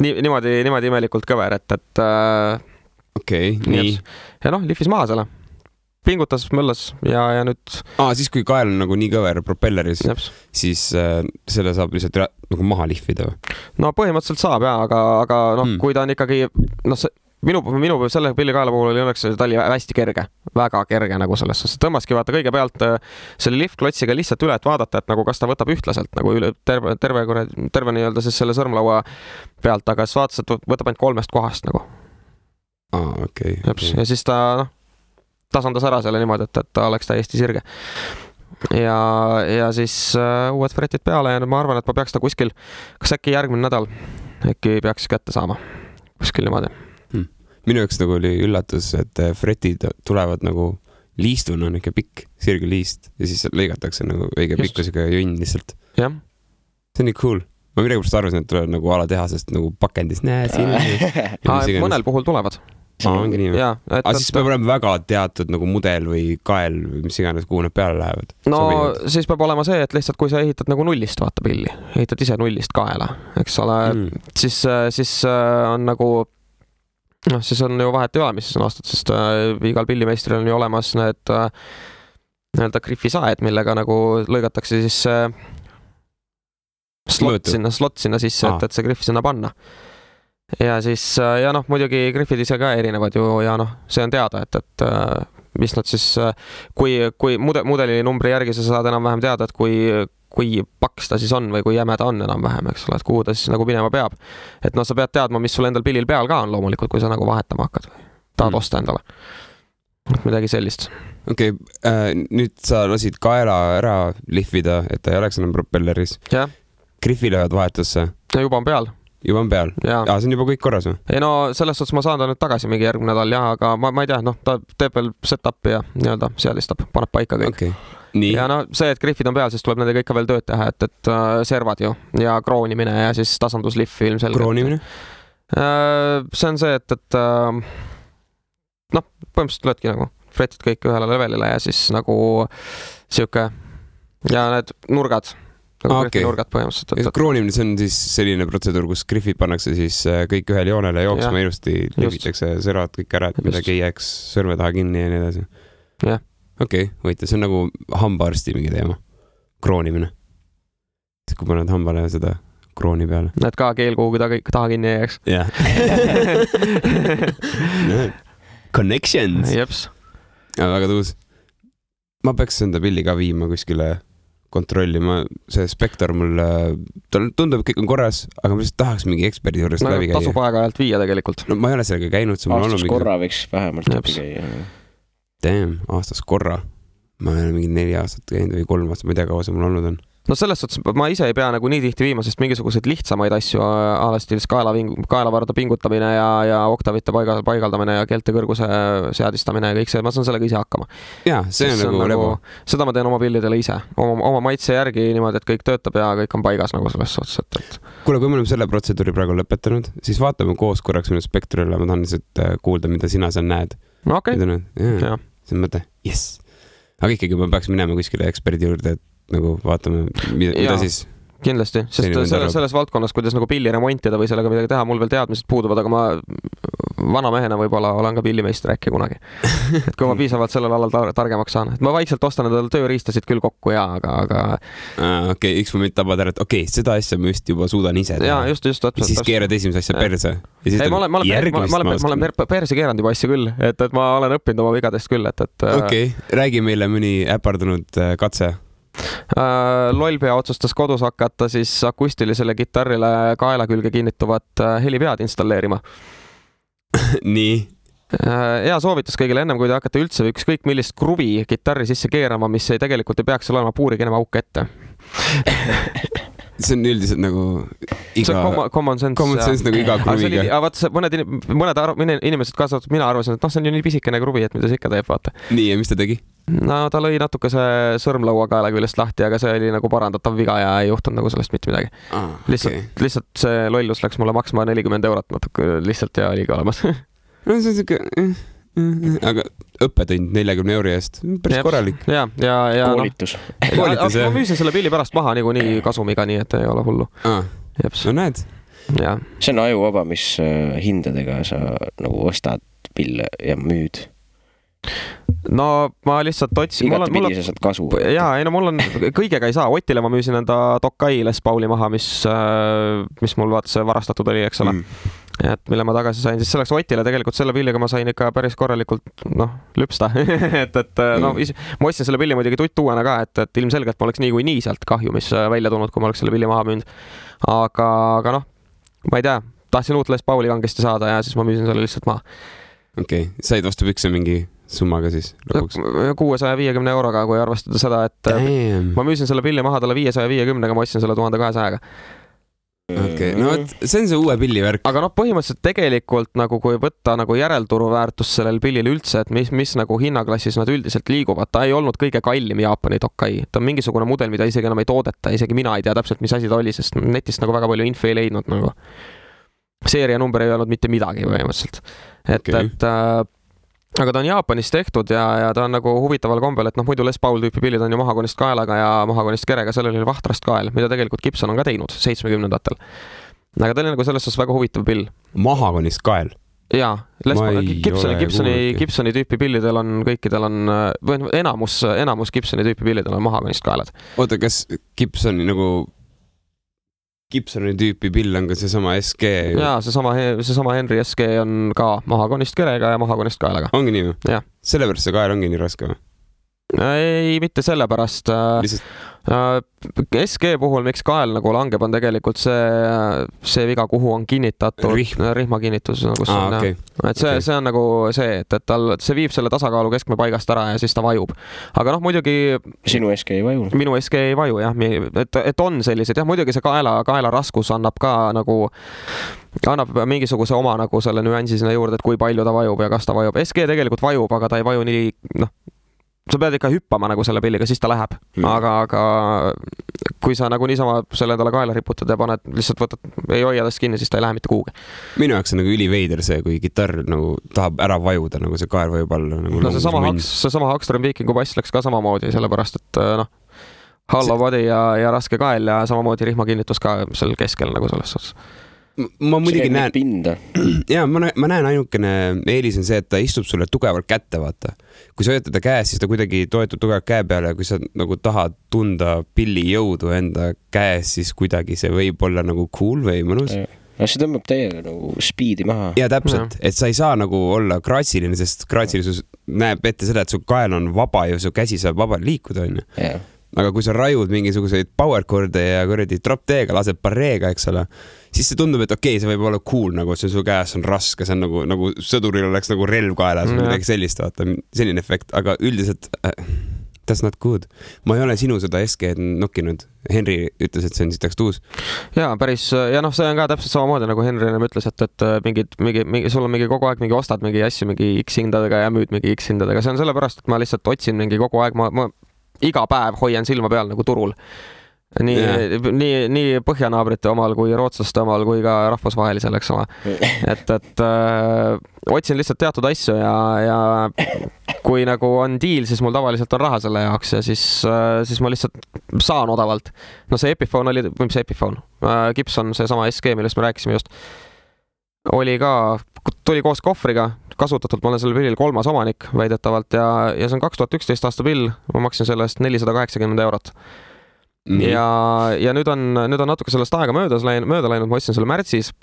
C: Niimoodi imelikult kõver,
A: Okei, nii.
C: Ja lihvis maha selle. Pingutas, möllas ja nüüd...
A: Siis kui kael on nagu nii kõver propelleris, siis selle saab lihtsalt nagu maha lihvida või?
C: No põhimõtteliselt saab jah, aga kui ta on ikkagi... Minu selle pillikaela puhul oli õnneks, ta oli hästi kerge, väga kerge nagu selles. Tõmbaski vaata kõige pealt selle liftklotsiga lihtsalt üle, et vaadata, et nagu kas ta võtab ühtlaselt nagu üle terve nii-öelda siis selle sõrmlaua pealt, aga siis vaatas, et võtab ainult 3 kohast nagu.
A: Okei.
C: Ja siis ta... tasandas ära selle niimoodi, et ta oleks täiesti sirge. Ja siis uued fretid peale ja ma arvan, et ma peaks ta kuskil, kas äkki järgmine nädal äkki peaks kätte saama. Kuskil niimoodi.
A: Minu jaoks nagu oli üllatus, et fretid tulevad nagu liistuna, on ikka pikk, sirge liist ja siis lõigatakse nagu õige pikkusega jonn lihtsalt.
C: Jah.
A: See on nii cool. Ma midagi pärast arvasin, et tulevad nagu alatehasest nagu pakendis.
C: Mõnel puhul tulevad.
A: Ongi nii. Siis peab olema väga teatud nagu mudel või kael või mis iganes, kuhu nad peale lähevad.
C: No siis peab olema see, et lihtsalt kui sa ehitad nagu nullist, vaata pilli, ehitad ise nullist kaela, eks ole, siis on nagu, siis on ju vahet ei ole, mis on aastat, sest igal pillimeistril on ju olemas need nii-öelda griffisaed, millega nagu lõigatakse siis slot sinna sisse, et see griff sinna panna. Ja siis, muidugi griffid ise ka erinevad ju ja see on teada, et mis nad siis, kui mudeli numbri järgi sa saad enam-vähem teada, et kui paks ta siis on või kui jäme ta on enam-vähem, eks ole, et kuhu ta siis nagu minema peab. Et sa pead teadma, mis sul endal pillil peal ka on loomulikult, kui sa nagu vahetama hakkad või tahad osta endale. Midagi sellist.
A: Okei, nüüd sa lasid kaela ära lihvida, et ta ei oleks enam propelleris.
C: Ja.
A: Griffi löövad vahetusse.
C: Ja juba on peal.
A: Juba on peal? See on juba kõik korras või?
C: Ei selles suhtes ma saan ta nüüd tagasi mingi järgmine nädal, aga ma ei tea, ta teeb veel set-upi ja nii-öelda seadistab, paneb paika kõik.
A: Okay. Nii.
C: Ja see, et griffid on peal, siis tuleb nendega ikka veel tööd teha, et servad ju ja kroonimine ja siis tasandusliff ilmselgelt.
A: Kroonimine?
C: See on see, et põhimõtteliselt löödki nagu fretid kõik ühele levelile ja siis nagu siuke ja need nurgad nurgad põhimõtteliselt.
A: Kroonimine, see on siis selline protseduur, kus griffid pannakse siis kõik ühele joonele jooksma ilusti, levitakse servad kõik ära, et midagi ei jääks sõrme taha kinni ja nii edasi. Okei, võite, see on nagu hambaarsti mingi teema. Kroonimine. Kui paned hambale seda krooni peale.
C: Näed ka keel kuhugi taha kinni ei jääks.
A: Jah. Connections.
C: Jeps.
A: Väga tuus. Ma peaks enda pilli ka viima kuskile kontrollima, see spektor mul tundub, et kõik on korras, aga ma lihtsalt tahaks mingi eksperdi juurest läbi käia.
C: Tasub aega-ajalt viia tegelikult.
A: Ma ei ole sellega käinud.
B: Aastas korra võiks vähemalt läbi käia.
A: Damn, aastas korra. Ma olen mingi 4 aastat käinud või 3 aastat, ma ei tea, kaua see mul olnud on.
C: no selles suhtes ma ise ei pea nagu nii tihti viima, sest mingisuguseid lihtsamaid asju alastiilis kaelavarda pingutamine ja oktavite paigaldamine ja keelte kõrguse seadistamine ja kõik see, ma saan sellega ise hakkama.
A: Jaa, see on nagu lebu.
C: Seda ma teen oma pillidele ise, oma maitse järgi niimoodi, et kõik töötab ja kõik on paigas nagu selles suhtes, et...
A: Kuule, kui me oleme selle protseduuri praegu lõpetanud, siis vaatame koos korraks minu spektrille, ma tahan lihtsalt kuulda, mida sina seal näed.
C: No okei.
A: Ja. See on mõte, yes. Aga ikkagi ma peaks minema kuskile eksperdi juurde, et nagu vaatame, mida siis...
C: Kindlasti, sest selles valdkonnas, kuidas nagu pilli remontida või sellega midagi teha, mul veel teadmised puuduvad, aga ma vana mehena võib-olla olen ka pillimeister äkki kunagi. Et kui ma piisavalt sellel alal targemaks saan. Et ma vaikselt ostan endale tööriistasid küll kokku, aga...
A: Okei, üks moment tabad ära, et seda asja ma just juba suudan ise teha.
C: Jaa, just.
A: Ja siis keerad esimese asja perse.
C: Ei, ma olen perse keeranud juba asja küll, et ma olen õppinud oma vigadest küll, et...
A: Okei, räägi meile mõni äpardunud katse.
C: Lollpea otsustas kodus hakata siis akustilisele kitarrile kaela külge kinnituvat helipead installeerima.
A: Nii?
C: Hea soovitus kõigile ennem, kui te hakkate üldse ükskõik millist kruvi kitarri sisse keerama, mis ei tegelikult ei peaks olema puurikene auk ette.
A: See on üldiselt nagu iga...
C: See on common sense.
A: Common sense nagu iga kruviga.
C: Aga mõned inimesed kaasatud, mina arvasin, et see on ju nii pisikene kruvi, et mida see ikka teeb, vaata.
A: Nii, ja mis ta tegi?
C: No ta lõi natuke see sõrmlaua kaela küljest lahti, aga see oli nagu parandatav viga ja ei juhtunud nagu sellest mitte midagi. Lihtsalt see lollus läks mulle maksma 40 € natuke lihtsalt ja oligi olemas.
A: No see on siuke... Aga õppetund 40 € eest, päris korralik.
C: Ja
B: koolitus.
C: Ma müüsin selle pilli pärast maha nii kasumiga, nii et ei ole hullu.
A: No näed.
B: See on ajuvaba, mis hindadega sa nagu ostad pille ja müüd.
C: No ma lihtsalt otsin...
B: Igatepidi sa saad kasu.
C: Jaa, ei no mul on... Kõigega ei saa. Otile ma müüsin enda Tokai Les Pauli maha, mis mul vaata see varastatud oli, eks ole. Et mille ma tagasi sain, siis selleks Otile tegelikult selle pilliga ma sain ikka päris korralikult lüpsta. Ma ostsin selle pilli muidugi tuttuuena ka, et ilmselgelt ma oleks nii sealt kahju, mis välja tulnud, kui ma oleks selle pilli maha müünud. Aga ma ei tea, tahtsin uut Les Pauli kangesti saada ja siis ma müüsin selle lihtsalt maha.
A: Okei, said vastu pükse mingi summaga siis lõpuks?
C: 650 €, kui arvestada seda, et ma müüsin selle pilli maha talle 550-ga, ma ostsin selle 1200-ga.
A: Okei, no see on see uue pilli värk.
C: Aga põhimõtteliselt tegelikult nagu kui võtta nagu järelturu väärtus sellel pillil üldse, et mis nagu hinnaklassis nad üldiselt liiguvad, ta ei olnud kõige kallim Jaapani Tokai. Ta on mingisugune mudel, mida isegi enam ei toodeta, isegi mina ei tea täpselt, mis asi ta oli, sest netist nagu väga palju info ei leidnud nagu. Seeria number ei olnud mitte midagi põhimõtteliselt. Aga ta on Jaapanis tehtud ja ta on nagu huvitaval kombel, et muidu Les Paul tüüpi pillid on ju mahakonist kaelaga ja mahakonist kerega, sellel oli vahtrast kael, mida tegelikult Gibson on ka teinud 70-ndatel. Aga ta oli nagu selles suhtes väga huvitav pill.
A: Mahakonist kael?
C: Jaa, Gibsoni tüüpi pillidel on, kõikidel on, või enamus Gibsoni tüüpi pillidel on mahakonist kaelad.
A: Oota, kas Gibsoni tüüpi pill on ka seesama SG?
C: Jaa, seesama Henry SG on ka mahakonist kerega ja mahakonist kaelaga.
A: Ongi nii või?
C: Jah.
A: Sellepärast see kael ongi nii raske või?
C: Ei, mitte sellepärast. SG puhul, miks kael nagu langeb, on tegelikult see viga, kuhu on kinnitatud rihmakinnitus.
A: Okay.
C: Et see on nagu see, et see viib selle tasakaalu keskme paigast ära ja siis ta vajub. Aga muidugi...
B: Sinu SG ei vaju?
C: Minu SG ei vaju, jah. Et on sellised, jah, muidugi see kaela raskus annab ka nagu... annab mingisuguse oma nagu selle nüansi sinna juurde, et kui palju ta vajub ja kas ta vajub. SG tegelikult vajub, aga ta ei vaju nii... sa pead ikka hüppama nagu selle pilliga, siis ta läheb. Aga kui sa nagu niisama selle endale kaela riputad ja paned, lihtsalt ei hoia tast kinni, siis ta ei lähe mitte kuhugi.
A: Minu jaoks on nagu üliveider see, kui kitarr nagu tahab ära vajuda, nagu see kael vajub alla. Nagu
C: seesama Hagström Vikingu bass läks ka samamoodi, sellepärast, et hollow body ja raske kael ja samamoodi rihmakinnitus ka seal keskel nagu selles suhtes.
A: Ma muidugi näen... Jaa, ma näen ainukene eelis on see, et ta istub sulle tugevalt kätte, vaata. Kui sa hoiad teda käes, siis ta kuidagi toetub tugevalt käe peale ja kui sa nagu tahad tunda pilli jõudu enda käes, siis kuidagi see võib olla nagu cool või mõnus.
B: No see tõmbab täiega nagu speedi maha.
A: Ja täpselt, et sa ei saa nagu olla kraatsiline, sest kraatsilisus näeb ette seda, et su kael on vaba ja su käsi saab vabalt liikuda, on ju. Aga kui sa rajud mingisuguseid powercorde ja kuradi drop D-ga, lased barreega, eks ole, siis see tundub, et okei, see võib olla cool, nagu see su käes on raske, see on nagu sõduril oleks nagu relv kaelas või midagi sellist, vaata, selline efekt, aga üldiselt that's not good. Ma ei ole sinu seda SG nokkinud. Henry ütles, et see on sitaks tuus.
C: Jaa, päris, ja noh, see on ka täpselt samamoodi, nagu Henry ütles, et sul on mingi kogu aeg mingi ostad mingi asju mingi X hindadega ja müüd mingi X hindadega. See on sellepärast, et ma lihtsalt otsin mingi kogu aeg, ma iga päev hoian silma peal nagu turul. Nii põhjanaabrite omal kui rootslaste omal kui ka rahvusvahelisel, eks ole. Et otsin lihtsalt teatud asju ja kui nagu on deal, siis mul tavaliselt on raha selle jaoks ja siis ma lihtsalt saan odavalt. No see Epiphone oli, mis Epiphone? Gibson, see sama SG, millest me rääkisime just, oli ka, tuli koos kohvriga, kasutatult ma olen selle pillil 3. omanik väidetavalt ja see on 2011 aasta pill, ma maksin selle eest 480 €. Ja nüüd on natuke sellest aega mööda läinud, ma ostsin selle märtsis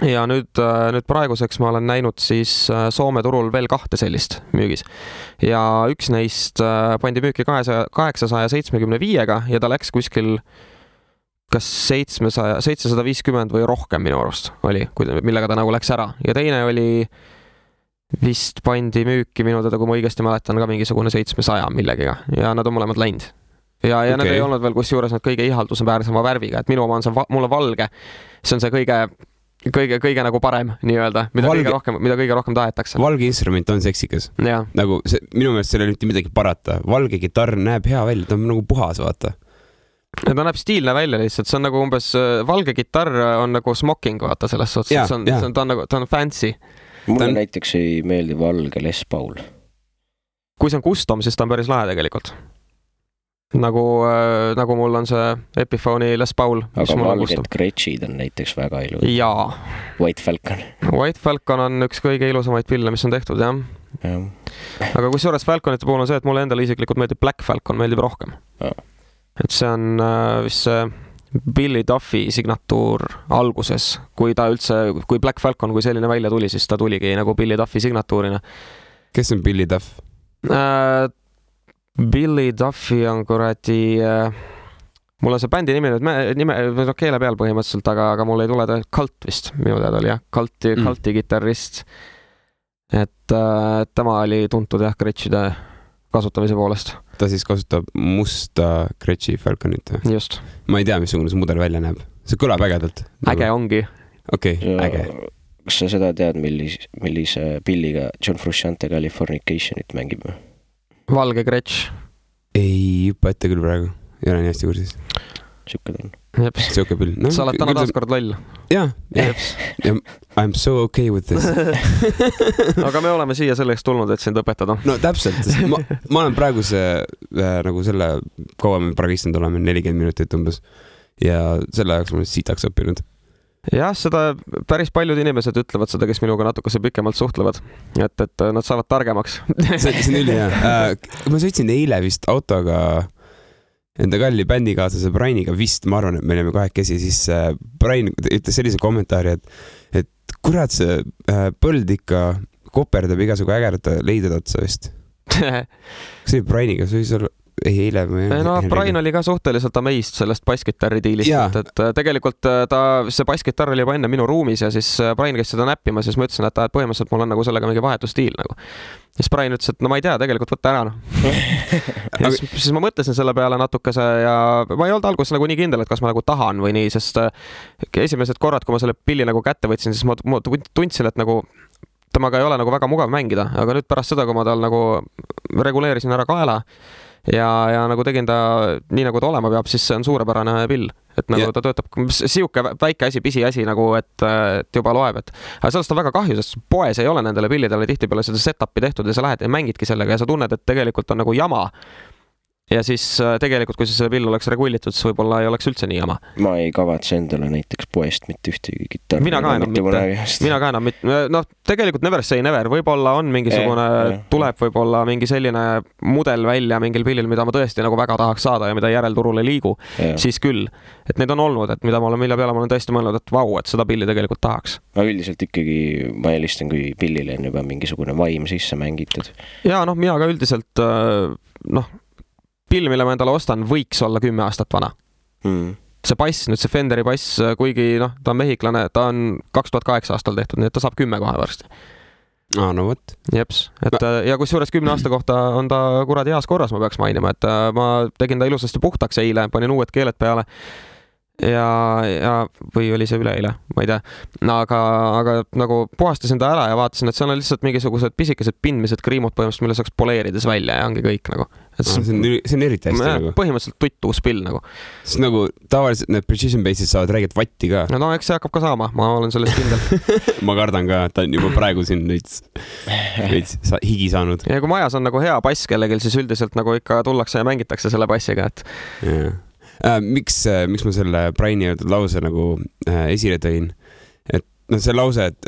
C: ja nüüd praeguseks ma olen näinud siis Soome turul veel 2 sellist müügis ja üks neist pandi müüki 875-ga ja ta läks kuskil kas 750 või rohkem minu arust oli, millega ta nagu läks ära ja teine oli vist pandi müüki minu teda, kui ma õigesti mäletan, ka mingisugune 700 millegiga ja nad on mõlemad läinud. Ja okay. Need ei olnud veel kus juures nad kõige ihaldusväärsema värviga, et minu oma on see mulle valge, see on see kõige nagu parem nii-öelda, mida kõige rohkem tahetakse.
A: Valge instrument on seksikas. Nagu see, minu meelest seal ei mitte midagi parata. Valge gitarr näeb hea välja, ta on nagu puhas, vaata.
C: Ta näeb stiilne välja lihtsalt, see on nagu umbes, valge gitarr on nagu smoking, vaata selles suhtes, ta on fancy.
B: Mulle näiteks ei meeldi valge Les Paul.
C: Kui see on custom, siis ta on päris lahe tegelikult. Nagu mul on see Epiphone'i Les Paul.
B: Aga valged Gretschid on näiteks väga ilus.
C: Jaa.
B: White Falcon.
C: White Falcon on üks kõige ilusamaid pille, mis on tehtud, jah. Aga kui suures Falconite puhul on see, et mulle endale isiklikult meeldib Black Falcon, meeldib rohkem. Et see on vist see Billy Duffy signatuur alguses, kui Black Falcon, kui selline välja tuli, siis ta tuligi nagu Billy Duffy signatuurina.
A: Kes on Billy Duff?
C: Billy Duffy on kuradi, mul on see bändi nime keele peal põhimõtteliselt, aga mul ei tule ta Cult vist, minu teada oli jah, Culti kitarrist. Et tema oli tuntud jah Gretschide kasutamise poolest.
A: Ta siis kasutab musta Gretši Falconit.
C: Just.
A: Ma ei tea, missugune see mudel välja näeb. See kõlab ägedalt.
C: Äge ongi.
A: Okei, äge.
B: Kas sa seda tead, millise pilliga John Frusciante Californicationit mängib?
C: Valge Gretsch.
A: Ei hüppa ette küll praegu. Ei ole nii hästi kursis.
B: Siuke ta on.
C: Jeps.
A: Siuke pill.
C: No, sa oled täna taaskord loll.
A: Jah. I'm so okay with this.
C: Aga me oleme siia selleks tulnud, et sind õpetada.
A: No täpselt. Ma olen praegu nagu selle kaua me praegu istunud oleme 40 minutit umbes. Ja selle jaoks ma siitaks õppinud.
C: Jah, seda päris paljud inimesed ütlevad seda, kes minuga natukese pikemalt suhtlevad, et nad saavad targemaks.
A: See on üli hea. Ma sõitsin eile vist autoga enda kalli bändikaaslase Brianiga vist, ma arvan, et me oleme kahekesi, siis Brian ütles sellise kommentaari, et kurat see põld ikka koperdab igasugu ägerda leided otsa vist. Kas see Brianiga, see võis olla eile või?
C: No, Brian oli ka suhteliselt amazed sellest basskitarri diilist, et tegelikult see basskitarr oli juba enne minu ruumis ja siis Brian käis seda näppima, siis ma ütlesin, et põhimõtteliselt mul on nagu sellega mingi vahetustiil nagu. Siis Brian ütles, et no ma ei tea, tegelikult võtta ära. Ja siis ma mõtlesin selle peale natukese ja ma ei olnud alguses nagu nii kindel, et kas ma nagu tahan või nii, sest esimesed korrad, kui ma selle pilli nagu kätte võtsin, siis ma tundsin, et nagu temaga ei ole nagu väga mugav mängida, aga nüüd pärast seda, kui ma tal nagu reguleerisin ära kaela ja nagu tegin ta nii nagu ta olema peab, siis see on suurepärane pill, et nagu ta töötab siuke väike asi, pisiasi nagu, et juba loeb, aga sellest on väga kahju, sest poes ei ole nendele pillidele tihtipeale seda setupi tehtud ja sa lähed ja mängidki sellega ja sa tunned, et tegelikult on nagu jama. Ja siis tegelikult, kui see pill oleks regullitud, siis võib-olla ei oleks üldse nii jama.
B: Ma ei kavatse endale näiteks poest mitte ühtegi gitarri.
C: Mina ka enam mitte. No tegelikult never say never. Võib-olla on mingisugune, tuleb võib-olla mingi selline mudel välja mingil pillil, mida ma tõesti nagu väga tahaks saada ja mida järelturul ei liigu. Siis küll. Et need on olnud, et mille peale ma olen tõesti mõelnud, et vau, et seda pilli tegelikult tahaks.
B: Aga üldiselt ikkagi ma eelistan, kui pillile on juba mingisugune vaim sisse mängitud.
C: Ja noh, mina ka üldiselt pill, mille ma endale ostan, võiks olla 10 aastat vana. See bass, nüüd see Fenderi bass, kuigi ta on mehiklane, ta on 2008 aastal tehtud, nii et ta saab 10 kohe varsti.
A: No võt.
C: Jeps, et ja kusjuures 10 aasta kohta on ta kuradi heas korras, ma peaks mainima, et ma tegin ta ilusasti puhtaks eile, panin uued keeled peale ja või oli see üleeile, ma ei tea, aga nagu puhastasin ta ära ja vaatasin, et seal on lihtsalt mingisugused pisikesed pindmised kriimud põhimõtteliselt, mille saaks poleerides välja ja ongi kõik nagu.
A: See on eriti hästi nagu.
C: Põhimõtteliselt tuttuus pill nagu.
A: Sest nagu tavaliselt need precision base'id saavad räägid vatti ka.
C: No eks see hakkab ka saama, ma olen sellest kindel.
A: Ma kardan ka, et ta on juba praegu siin veits higi saanud.
C: Ja kui majas on nagu hea bass kellelgi, siis üldiselt nagu ikka tullakse ja mängitakse selle bassiga, et...
A: Miks ma selle Briani öeldud lause nagu esile tõin, et see lause, et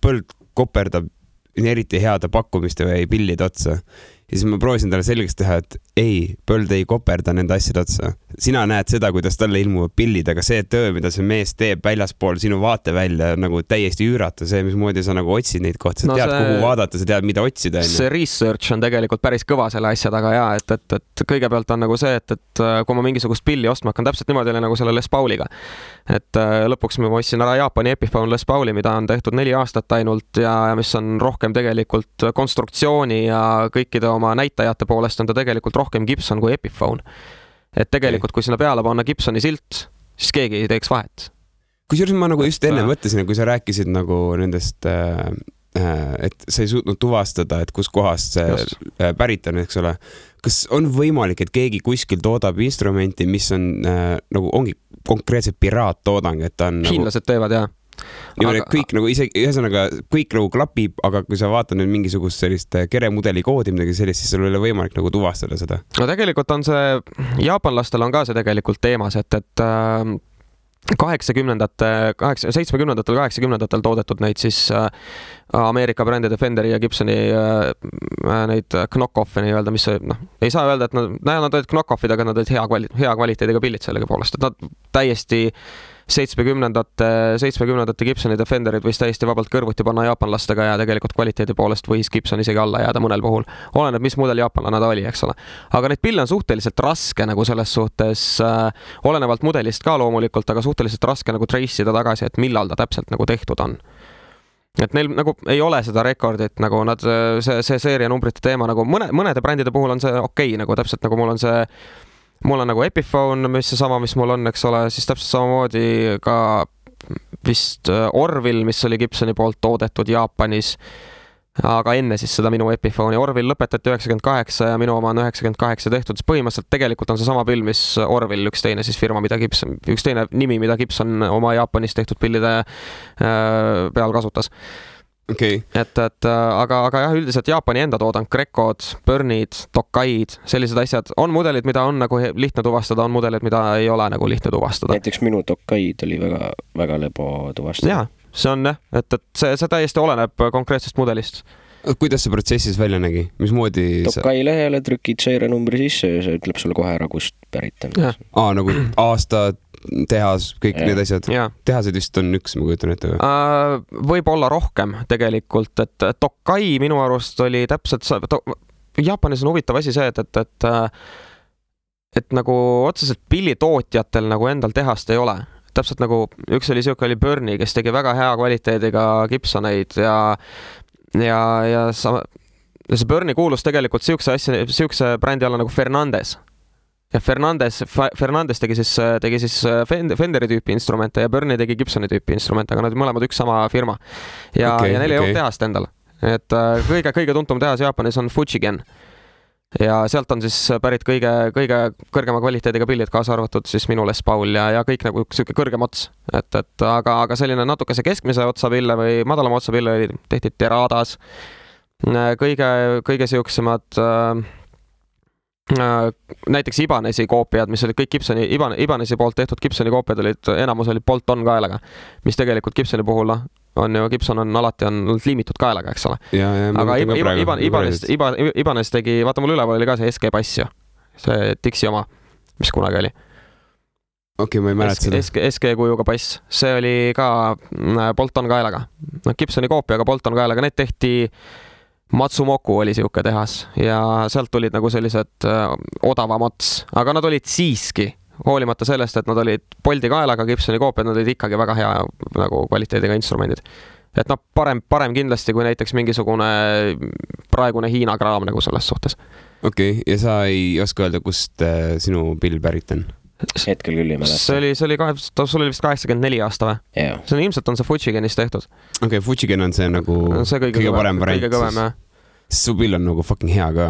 A: põld koperdab eriti heade pakkumiste või pillide otsa ja siis ma proovisin talle selgeks teha, et ei, põld ei koperda nende asjade otsa. Sina näed seda, kuidas talle ilmuvad pillid, aga see töö, mida see mees teeb väljaspool sinu vaatevälja, nagu täiesti üürata, see, mismoodi sa nagu otsid neid kohti, sa tead, kuhu vaadata, sa tead, mida otsida.
C: See research on tegelikult päris kõva selle asja taga ja, et kõigepealt on nagu see, et kui ma mingisugust pilli ostma hakkan, täpselt niimoodi oli nagu selle Les Pauliga. Et lõpuks ma ostsin ära Jaapani Epiphone Les Pauli, mida on tehtud 4 aastat ainult ja mis on rohkem tegelikult konstruktsiooni ja kõikide oma näitajate poolest on ta tegelikult rohkem Gibson kui Epiphone. Et tegelikult, kui sinna peale panna Gibsoni silt, siis keegi ei teeks vahet.
A: Kusjuures ma nagu just enne mõtlesin, kui sa rääkisid nagu nendest, et sa ei suutnud tuvastada, et kus kohast see pärit on, eks ole. Kas on võimalik, et keegi kuskil toodab instrumenti, mis on nagu ongi konkreetselt piraattoodang, et ta on
C: hiinlased teevad, jah.
A: Kõik nagu ühesõnaga kõik nagu klapib, aga kui sa vaatad nüüd mingisugust sellist keremudeli koodi, midagi sellist, siis sul ei ole võimalik nagu tuvastada seda.
C: No tegelikult on see, jaapanlastel on ka see tegelikult teemas, et 70-ndatel, 80-ndatel toodetud neid siis Ameerika brändide Fenderi ja Gibsoni neid knock-off'e nii öelda, mis ei saa öelda, et nad olid knock-off'id, aga nad olid hea kvaliteediga pillid sellega poolest, et nad täiesti 70-ndate Gibsonide Fenderid võis täiesti vabalt kõrvuti panna jaapanlastega ja tegelikult kvaliteedi poolest võis Gibson isegi alla jääda mõnel puhul. Oleneb, mis mudel jaapanlane ta oli, eks ole. Aga neid pille on suhteliselt raske nagu selles suhtes, olenevalt mudelist ka loomulikult, aga suhteliselt raske nagu trace'ida tagasi, et millal ta täpselt nagu tehtud on. Et neil nagu ei ole seda rekordit, nagu nad, see seeria numbrite teema, nagu mõnede brändide puhul on see okei, nagu täpselt nagu mul on nagu Epiphone, mis seesama, mis mul on, eks ole, siis täpselt samamoodi ka vist Orville, mis oli Gibsoni poolt toodetud Jaapanis, aga enne siis seda minu Epiphone'i. Orville lõpetati 98 ja minu oma on 98 tehtud, siis põhimõtteliselt tegelikult on see sama pill, mis Orville, üks teine siis firma, üks teine nimi, mida Gibson oma Jaapanis tehtud pillide peal kasutas.
A: Okay.
C: Aga jah, üldiselt Jaapani enda toodang, Grekod, Burnid, Tokaid, sellised asjad, on mudelid, mida on nagu lihtne tuvastada, on mudelid, mida ei ole nagu lihtne tuvastada.
B: Näiteks minu Tokaid oli väga, väga lebo tuvastada.
C: Jaa, see on jah, et see täiesti oleneb konkreetsest mudelist.
A: Kuidas see protsessis välja nägi? Mismoodi
B: Tokai lehele trükid seirenumbri sisse ja see ütleb sulle kohe ära, kust pärit on.
A: Nagu aastad, tehas, kõik need asjad. Tehased vist on üks, ma kujutan ette.
C: Võib olla rohkem tegelikult, et Tokai minu arust oli täpselt Jaapanis on huvitav asi see, et nagu otseselt pillitootjatel nagu endal tehast ei ole. Täpselt nagu üks oli siuke oli Burni, kes tegi väga hea kvaliteediga Gibsoneid ja see Burni kuulus tegelikult siukse brändi alla nagu Fernandes. Ja Fernandes tegi siis Fenderi tüüpi instrumente ja Burni tegi Gibsoni tüüpi instrumente, aga nad mõlemad üks sama firma. Ja neil ei olnud tehast endal. Et kõige tuntum tehas Jaapanis on Fujigen. Ja sealt on siis pärit kõige kõrgema kvaliteediga pillid, kaasa arvatud siis minu Les Paul ja kõik nagu siuke kõrgem ots. Aga selline natukese keskmise otsa pille või madalama otsa pille tehti Teradas. Kõige siuksemad näiteks Ibanesi koopiad, mis olid kõik Ibanesi poolt tehtud Gibsoni koopiad enamus olid Bolt-on kaelaga, mis tegelikult Gibsoni puhul on ju, Gibson on alati liimitud kaelaga, eks ole. Aga Ibanez tegi, vaata mul üleval oli ka see SG Bass ju, see Dixi oma, mis kunagi oli.
A: Okei, ma ei mäleta seda.
C: SG kujuga bass, see oli ka Bolt-on kaelaga. Gibsoni koopiaga Bolt-on kaelaga, need tehti Matsumoku oli siuke tehas ja sealt tulid nagu sellised odavamats, aga nad olid siiski, hoolimata sellest, et nad olid Bolti kaelaga, Gibsoni koopiad, nad olid ikkagi väga hea nagu kvaliteediga instrumendid. et noh, parem kindlasti kui näiteks mingisugune praegune Hiina kraam nagu selles suhtes.
A: Okei, ja sa ei oska öelda, kust sinu pill pärit on?
B: Hetkel küll ei mäleta.
C: See oli vist 84 aasta või?
B: Yeah.
C: See on ilmselt on see Fujigenist tehtud.
A: Okei, Fujigen on see nagu
C: see kõige
A: parem variant.
C: Kõige kõvem, jah.
A: Su pill on nagu fucking hea ka.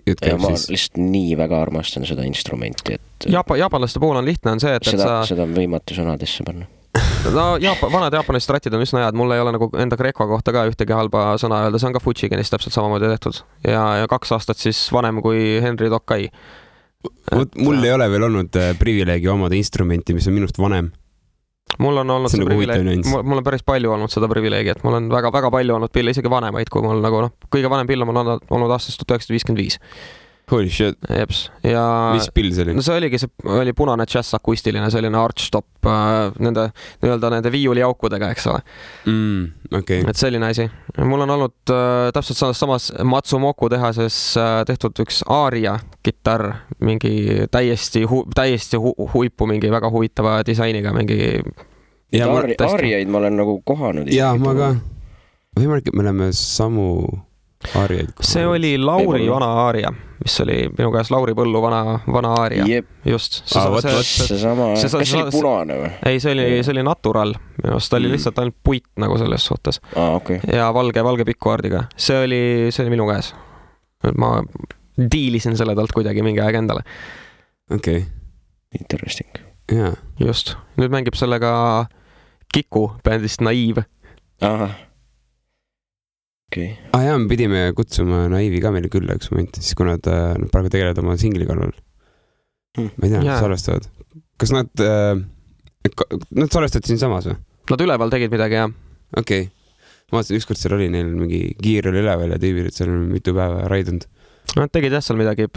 B: Ja ma lihtsalt nii väga armastan seda instrumenti, et...
C: Jaapanlaste puhul on lihtne on see, et
B: seda on võimatu sõnadesse panna.
C: No vanad jaapanlased ratid on üsna head, mul ei ole nagu enda Greco kohta ka ühtegi halba sõna öelda, see on ka Fujigenist täpselt samamoodi tehtud. Ja 2 aastat siis vanem kui Henry Tokai.
A: Mul ei ole veel olnud privileegi omada instrumenti, mis on minust vanem.
C: Mul on olnud see privileegi, mul on päris palju olnud seda privileegi, et mul on väga palju olnud pille, isegi vanemaid, kui mul nagu kõige vanem pill on mul olnud aastast 1955.
A: Holy shit.
C: Jeps. Ja
A: mis pill see oli?
C: No see oli punane jazz akustiline, selline archtop nende viiulijaukudega, eks ole.
A: Okay.
C: Et selline asi. Mul on olnud täpselt samas Matsumoku tehases tehtud üks Aria kitarr, mingi täiesti huipu, mingi väga huvitava disainiga, mingi...
B: Ariaid ma olen nagu kohanud.
A: Jaa, ma ka. Võimalik, et me oleme samu... Aariaid.
C: See oli Lauri vana aaria, mis oli minu käes Lauri Põllu vana aaria.
B: Jep.
C: Just.
B: Seesama. Kas see oli punane või?
C: Ei, see oli natural. Minu arust oli lihtsalt ainult puit nagu selles suhtes.
B: Okay.
C: Ja valge pikkuardiga. See oli minu käes. Ma diilisin selle talt kuidagi mingi aeg endale.
A: Okei.
B: Interesting.
A: Jaa.
C: Just. Nüüd mängib sellega Kiku bändist Naiv.
B: Aha. Okay.
A: Jaa, me pidime kutsuma Naivi ka meile külla üks moment, siis kui nad praegu tegelevad oma singli kallal. Ma ei tea, salvestavad. Kas nad salvestavad siin samas või?
C: Nad üleval tegid midagi, jah.
A: Okei. Ma vaatasin, ükskord seal oli neil mingi kiir oli üleval ja tüübil, et seal on mitu päeva raidunud.
C: Nad tegid jah seal midagi.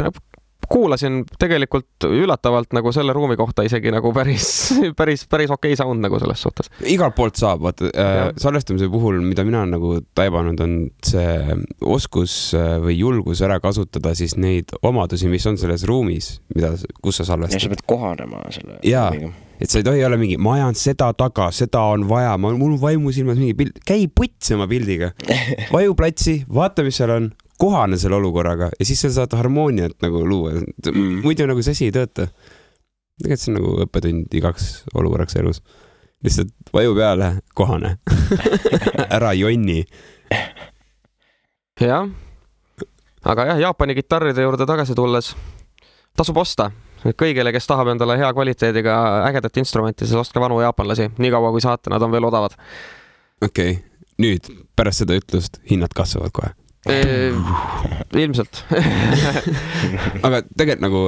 C: Kuulasin tegelikult üllatavalt nagu selle ruumi kohta isegi nagu päris okei sound nagu selles suhtes.
A: Igalt poolt saab, vaata, salvestamise puhul, mida mina nagu taibanud, on see oskus või julgus ära kasutada siis neid omadusi, mis on selles ruumis, kus sa salvestad.
B: Ja sa pead kohanema selle.
A: Jaa, et sa ei tohi olla mingi, ma ajan seda taga, seda on vaja, mul vaimu silmas mingi pild, käi putsi oma pildiga, vaju platsi, vaata, mis seal on, kohane selle olukorraga ja siis sa saad harmooniat nagu luua. Muidu nagu see asi ei tööta. Tegelikult see on nagu õppetund igaks olukorraks elus. Lihtsalt vaju peale, kohane. Ära jonni.
C: Jah. Aga jah, Jaapani kitarride juurde tagasi tulles tasub osta. Kõigile, kes tahab endale hea kvaliteediga ägedat instrumenti, siis ostke vanu jaapanlasi. Nii kaua kui saate, nad on veel odavad.
A: Okei. Nüüd pärast seda ütlust hinnad kasvavad kohe.
C: Ilmselt.
A: Aga tegelikult nagu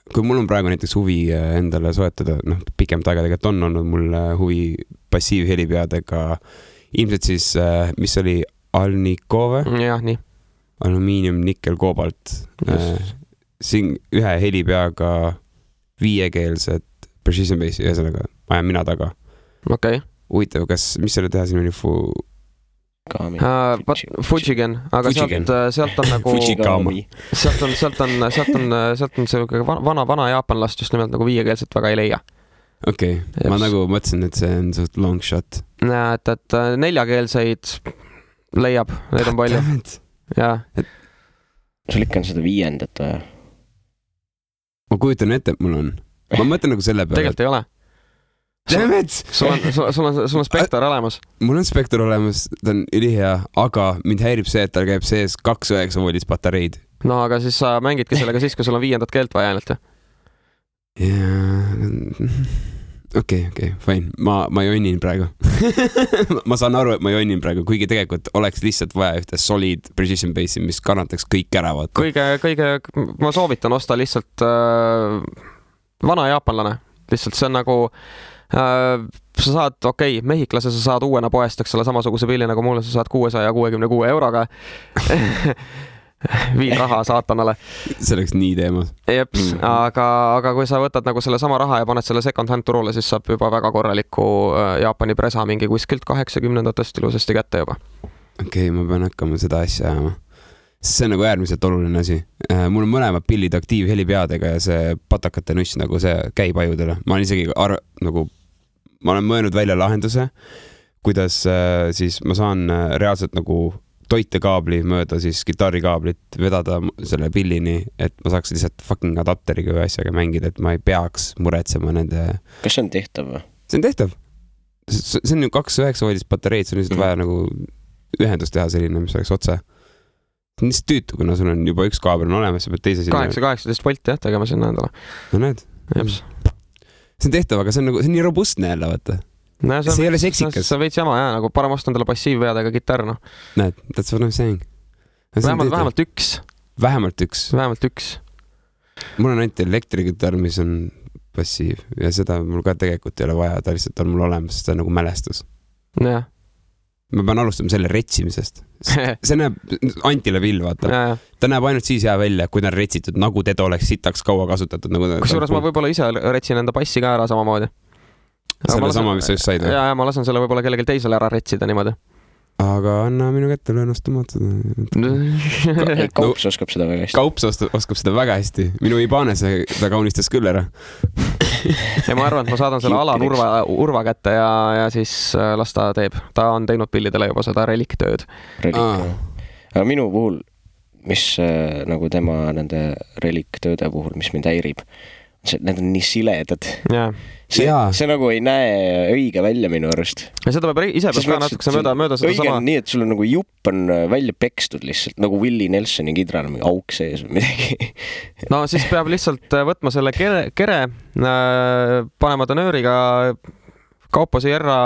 A: kui mul on praegu näiteks huvi endale soetada, pikemat aega tegelikult on olnud mul huvi passiivhelipeadega, ilmselt siis, mis oli Alnikove?
C: Jah, nii.
A: Alumiinium, nikkel, koobalt. Siin ühe helipeaga 5-keelset precision bassi, ühesõnaga ajan mina taga.
C: Okei.
A: Huvitav, mis selle teha siin oli
C: Fujigen, aga sealt on nagu sealt on see vana jaapanlast just nimelt nagu 5-keelset väga ei leia.
A: Okei, ma nagu mõtlesin, et see on suht long shot.
C: Et 4-keelseid leiab, neid on palju. Jaa.
B: Sul ikka on seda 5-ndat või?
A: Ma kujutan ette, et mul on. Ma mõtlen nagu selle peale.
C: Tegelikult ei ole. Sul on spektor olemas.
A: Mul on spektor olemas, ta on ülihea, aga mind häirib see, et tal käib sees 2,9 voldis patareid.
C: No aga siis sa mängidki sellega siis, kui sul on 5. keelt vaja ainult.
A: Okei, fine. Ma jonnin praegu. Ma saan aru, et ma jonnin praegu, kuigi tegelikult oleks lihtsalt vaja ühte solid precision bassi, mis kannataks kõik ära.
C: Kõige, ma soovitan osta lihtsalt vana jaapanlane. Lihtsalt see on nagu sa saad, mehiklase sa saad uuena poest, eks ole, samasuguse pilli nagu mulle, sa saad 666 euroga. Viin raha saatanale.
A: See oleks nii teemas.
C: Jeps, aga kui sa võtad nagu selle sama raha ja paned selle second hand turule, siis saab juba väga korraliku Jaapani presa mingi kuskilt 80-ndatest ilusasti kätte juba. Okei,
A: ma pean hakkama seda asja ajama. See on nagu äärmiselt oluline asi. Mul on mõlemad pillid aktiivhelipeadega ja see patakate nuss nagu see käib ajudele. Ma olen isegi ma olen mõelnud välja lahenduse, kuidas siis ma saan reaalselt nagu toitekaabli mööda siis kitarrikaablit vedada selle pillini, et ma saaks lihtsalt fucking adapteriga või asjaga mängida, et ma ei peaks muretsema nende...
B: Kas see on tehtav või?
A: See on tehtav. See on ju 2,9 voldist patareid, see on lihtsalt vaja nagu ühendust teha selline, mis oleks otse. See on lihtsalt tüütu, kuna sul on juba üks kaabel on olemas, sa pead teise sinna...
C: 18 volti jah, tegema sinna endale.
A: No näed. See on tehtav, aga see on nii robustne jälle, vaata.
C: No,
A: see ei ole seksikas.
C: See veits jama, jah, nagu parem osta endale passiivveadega kitarr, noh.
A: Näed, that's what I'm saying.
C: Vähemalt üks.
A: Vähemalt üks. Mul on ainult elektrikitarr, mis on passiiv ja seda mul ka tegelikult ei ole vaja, ta lihtsalt on mul olemas, see on nagu mälestus.
C: Jah.
A: Ma pean alustama selle retsimisest. See näeb Antile vill, vaata. Ta näeb ainult siis hea välja, kui ta on retsitud, nagu teda oleks sitaks kaua kasutatud.
C: Kusjuures ma võib-olla ise retsin enda passi ka ära samamoodi.
A: Selle sama, mis sa just said?
C: Ja, ma lasen selle võib-olla kellelgi teisele ära retsida niimoodi.
A: Aga anna minu kätte, löön ostamaad seda.
B: Kaups oskab seda väga hästi.
A: Kaups oskab seda väga hästi. Minu Ibanese ta kaunistas küll ära.
C: Ja ma arvan, et ma saadan selle Alan Urva kätte ja siis las ta teeb. Ta on teinud pillidele juba seda reliktööd.
B: Aga minu puhul, mis nagu tema nende reliktööde puhul, mis mind häirib, need on nii siledad. See nagu ei näe õige välja minu arust.
C: Ja seda peab ise peab ka natukese mööda seda
B: õige on nii, et sul on nagu jupp on välja pekstud lihtsalt, nagu Willie Nelsoni kidral, mingi auk sees või midagi.
C: No siis peab lihtsalt võtma selle kere panema ta nööriga Kaupo Sierra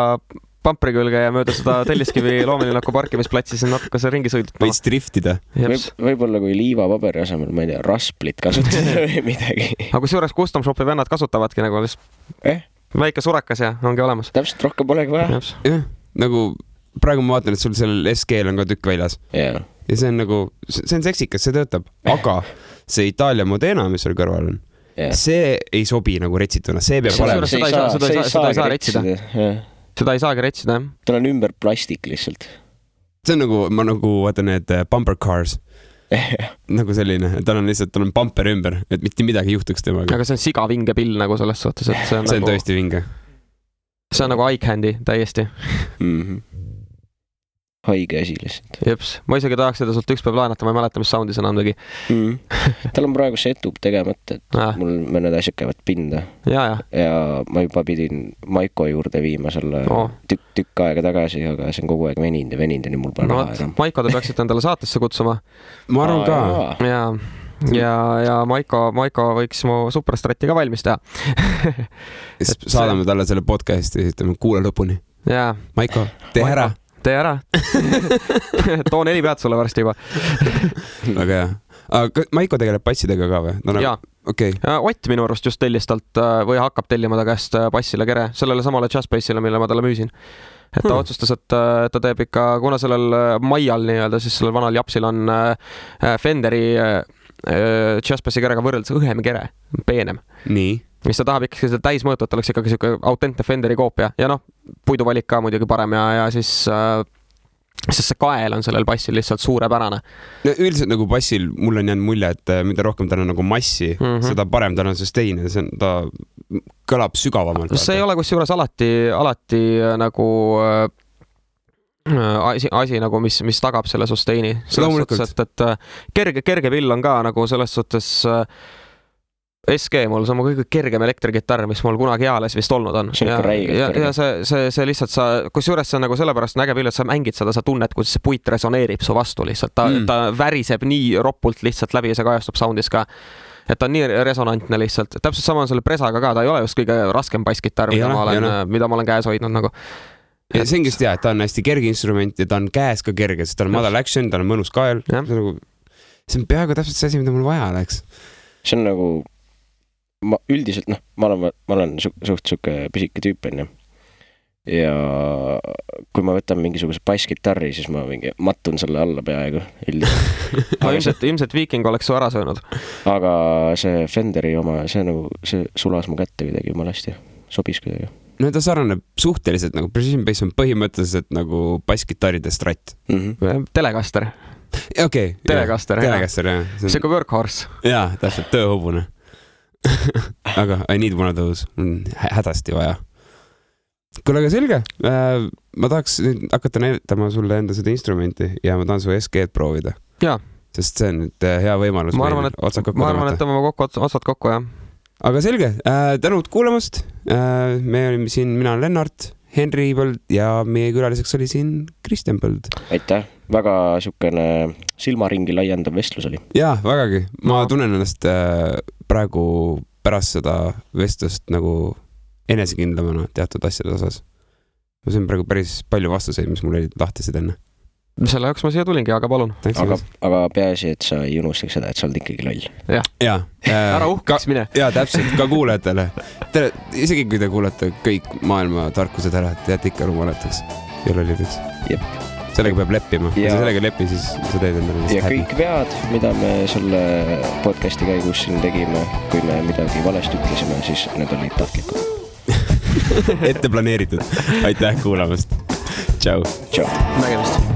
C: pampri külge ja mööda seda Telliskivi loomelinnaku parkimisplatsi siin natuke see ringi sõidutama.
A: Võiks driftida.
B: Võib-olla kui liivapaberi asemel, ma ei tea, rasplit kasutada või midagi.
C: Aga kusjuures custom shopi vennad kasutavadki nagu väike surakas ja ongi olemas.
B: Täpselt, rohkem polegi vaja.
A: Nagu praegu ma vaatan, et sul sellel SG-l on ka tükk väljas. Ja see on nagu, see on seksikas, see töötab. Aga see Itaalia Modena, mis seal kõrval on, see ei sobi nagu retsituna. See peab olema.
C: Seda ei saa retsida. Seda ei saagi retsida, jah.
B: Tal on ümber plastik lihtsalt.
A: See on nagu, ma nagu vaatan need bumper cars. Nagu selline, tal on bumper ümber, et mitte midagi juhtuks temaga.
C: Aga see on siga vinge pill nagu selles suhtes, et
A: see on tõesti vinge.
C: See on nagu eye candy täiesti.
B: Haige asi lihtsalt.
C: Jeps, ma isegi tahaks seda sult üks päev laenata, ma ei mäleta, mis soundis on andagi.
B: Tal on praegu setup tegemata, et mul mõned asjad käivad pinda. Ja ma juba pidin Maiko juurde viima selle tükk aega tagasi, aga see on kogu aeg veninud ja nii mul pole raha enam.
C: Maiko te peaksite endale saatesse kutsuma.
A: Ma arvan ka.
C: Ja Maiko võiks mu Superstrati ka valmis teha.
A: Saadame talle selle podcasti ja ütleme kuule lõpuni. Maiko, tee ära.
C: Tee ära. Too 4 pead sulle varsti juba.
A: Väga hea. Aga Maiko tegeleb passidega ka või?
C: Jaa. Ott minu arust just tellis talt või hakkab tellima ta käest passile kere, sellele samale Jazzbassile, mille ma talle müüsin. Et ta otsustas, et ta teeb ikka, kuna sellel Maial nii-öelda, siis sellel vanal Japsil on Fenderi Jazzbassi kerega võrreldes õhem kere, peenem.
A: Nii.
C: Mis ta tahab ikkagi seda täismõõtu, et oleks ikkagi siuke autentne Fenderi koopia. Ja puiduvalik ka muidugi parem ja siis see kael on sellel bassil lihtsalt suurepärane.
A: Üldiselt nagu bassil mul on jäänud mulje, et mida rohkem tal on nagu massi, seda parem tal on sustain, ta kõlab sügavamalt.
C: See ei ole kusjuures alati nagu asi nagu, mis tagab selle sustaini. Selles suhtes, et kerge vill on ka nagu selles suhtes SG mul, see on mu kõige kergem elektrikitarr, mis mul kunagi eales vist olnud on. Ja see lihtsalt kusjuures see on nagu sellepärast näge pill, et sa mängid seda, sa tunned, kuidas see puit resoneerib su vastu lihtsalt. Ta väriseb nii ropult lihtsalt läbi ja see kajastub soundis ka. Et ta on nii resonantne lihtsalt. Täpselt sama on selle presaga ka, ta ei ole just kõige raskem basskitarr, mida ma olen käes hoidnud nagu.
A: Ja see on just hea, et ta on hästi kerge instrument ja ta on käes ka kerge, sest ta on madal action, ta on mõnus kael. See on peaaegu täpselt see asi, mida mul vaja oleks.
B: See on nagu ma üldiselt, ma olen suht siuke pisike tüüp, ja kui ma võtan mingisuguse basskitarri, siis ma mattun selle alla peaaegu
C: ilmselt Viking oleks su ära söönud.
B: Aga see Fenderi oma, see sulas mu kätte kuidagi jumalasti, sobis kuidagi.
A: No ta saraneb suhteliselt nagu Precision Bass on põhimõtteliselt nagu basskitarride strat.
C: Telecaster.
A: Okei.
C: Telecaster,
A: jah.
C: See kui workhorse.
A: Jaa, täpselt, tööhobune. Aga I need one of those, hädasti vaja. kuule, aga selge. Ma tahaks nüüd hakata näitama sulle enda seda instrumenti ja ma tahan su SG-d proovida.
C: Jaa.
A: Sest see on nüüd hea võimalus.
C: Ma arvan, et tõmbame otsad kokku, jah.
A: Aga selge, tänud kuulamast. Me olime siin, mina olen Lennart, Henri Põld ja meie külaliseks oli siin Kristjan Põld.
B: Aitäh, väga siukene silmaringi laiendav vestlus oli.
A: Jaa, vägagi. Ma tunnen ennast praegu pärast seda vestlust nagu enesekindlamana teatud asjade osas. Ma sain praegu päris palju vastuseid, mis mul olid lahtised enne.
C: Selle jaoks ma siia tulingi, aga palun.
B: Aga peaasi, et sa ei unustaks seda, et sa oled ikkagi loll.
A: Jah.
C: Ära uhkaks mine.
A: Jaa, täpselt, ka kuulajatele. Isegi kui te kuulete kõik maailma tarkused ära, et jääte ikka rumalataks ja lollideks.
B: Jep.
A: Sellega peab leppima. Kui sa sellega lepi, siis sa teed endale
B: ja kõik vead, mida me selle podcasti käigus siin tegime, kui me midagi valesti ütlesime, siis need olid tahtlikud.
A: Ette planeeritud. Aitäh kuulamast. Tšau.
B: Nägemist.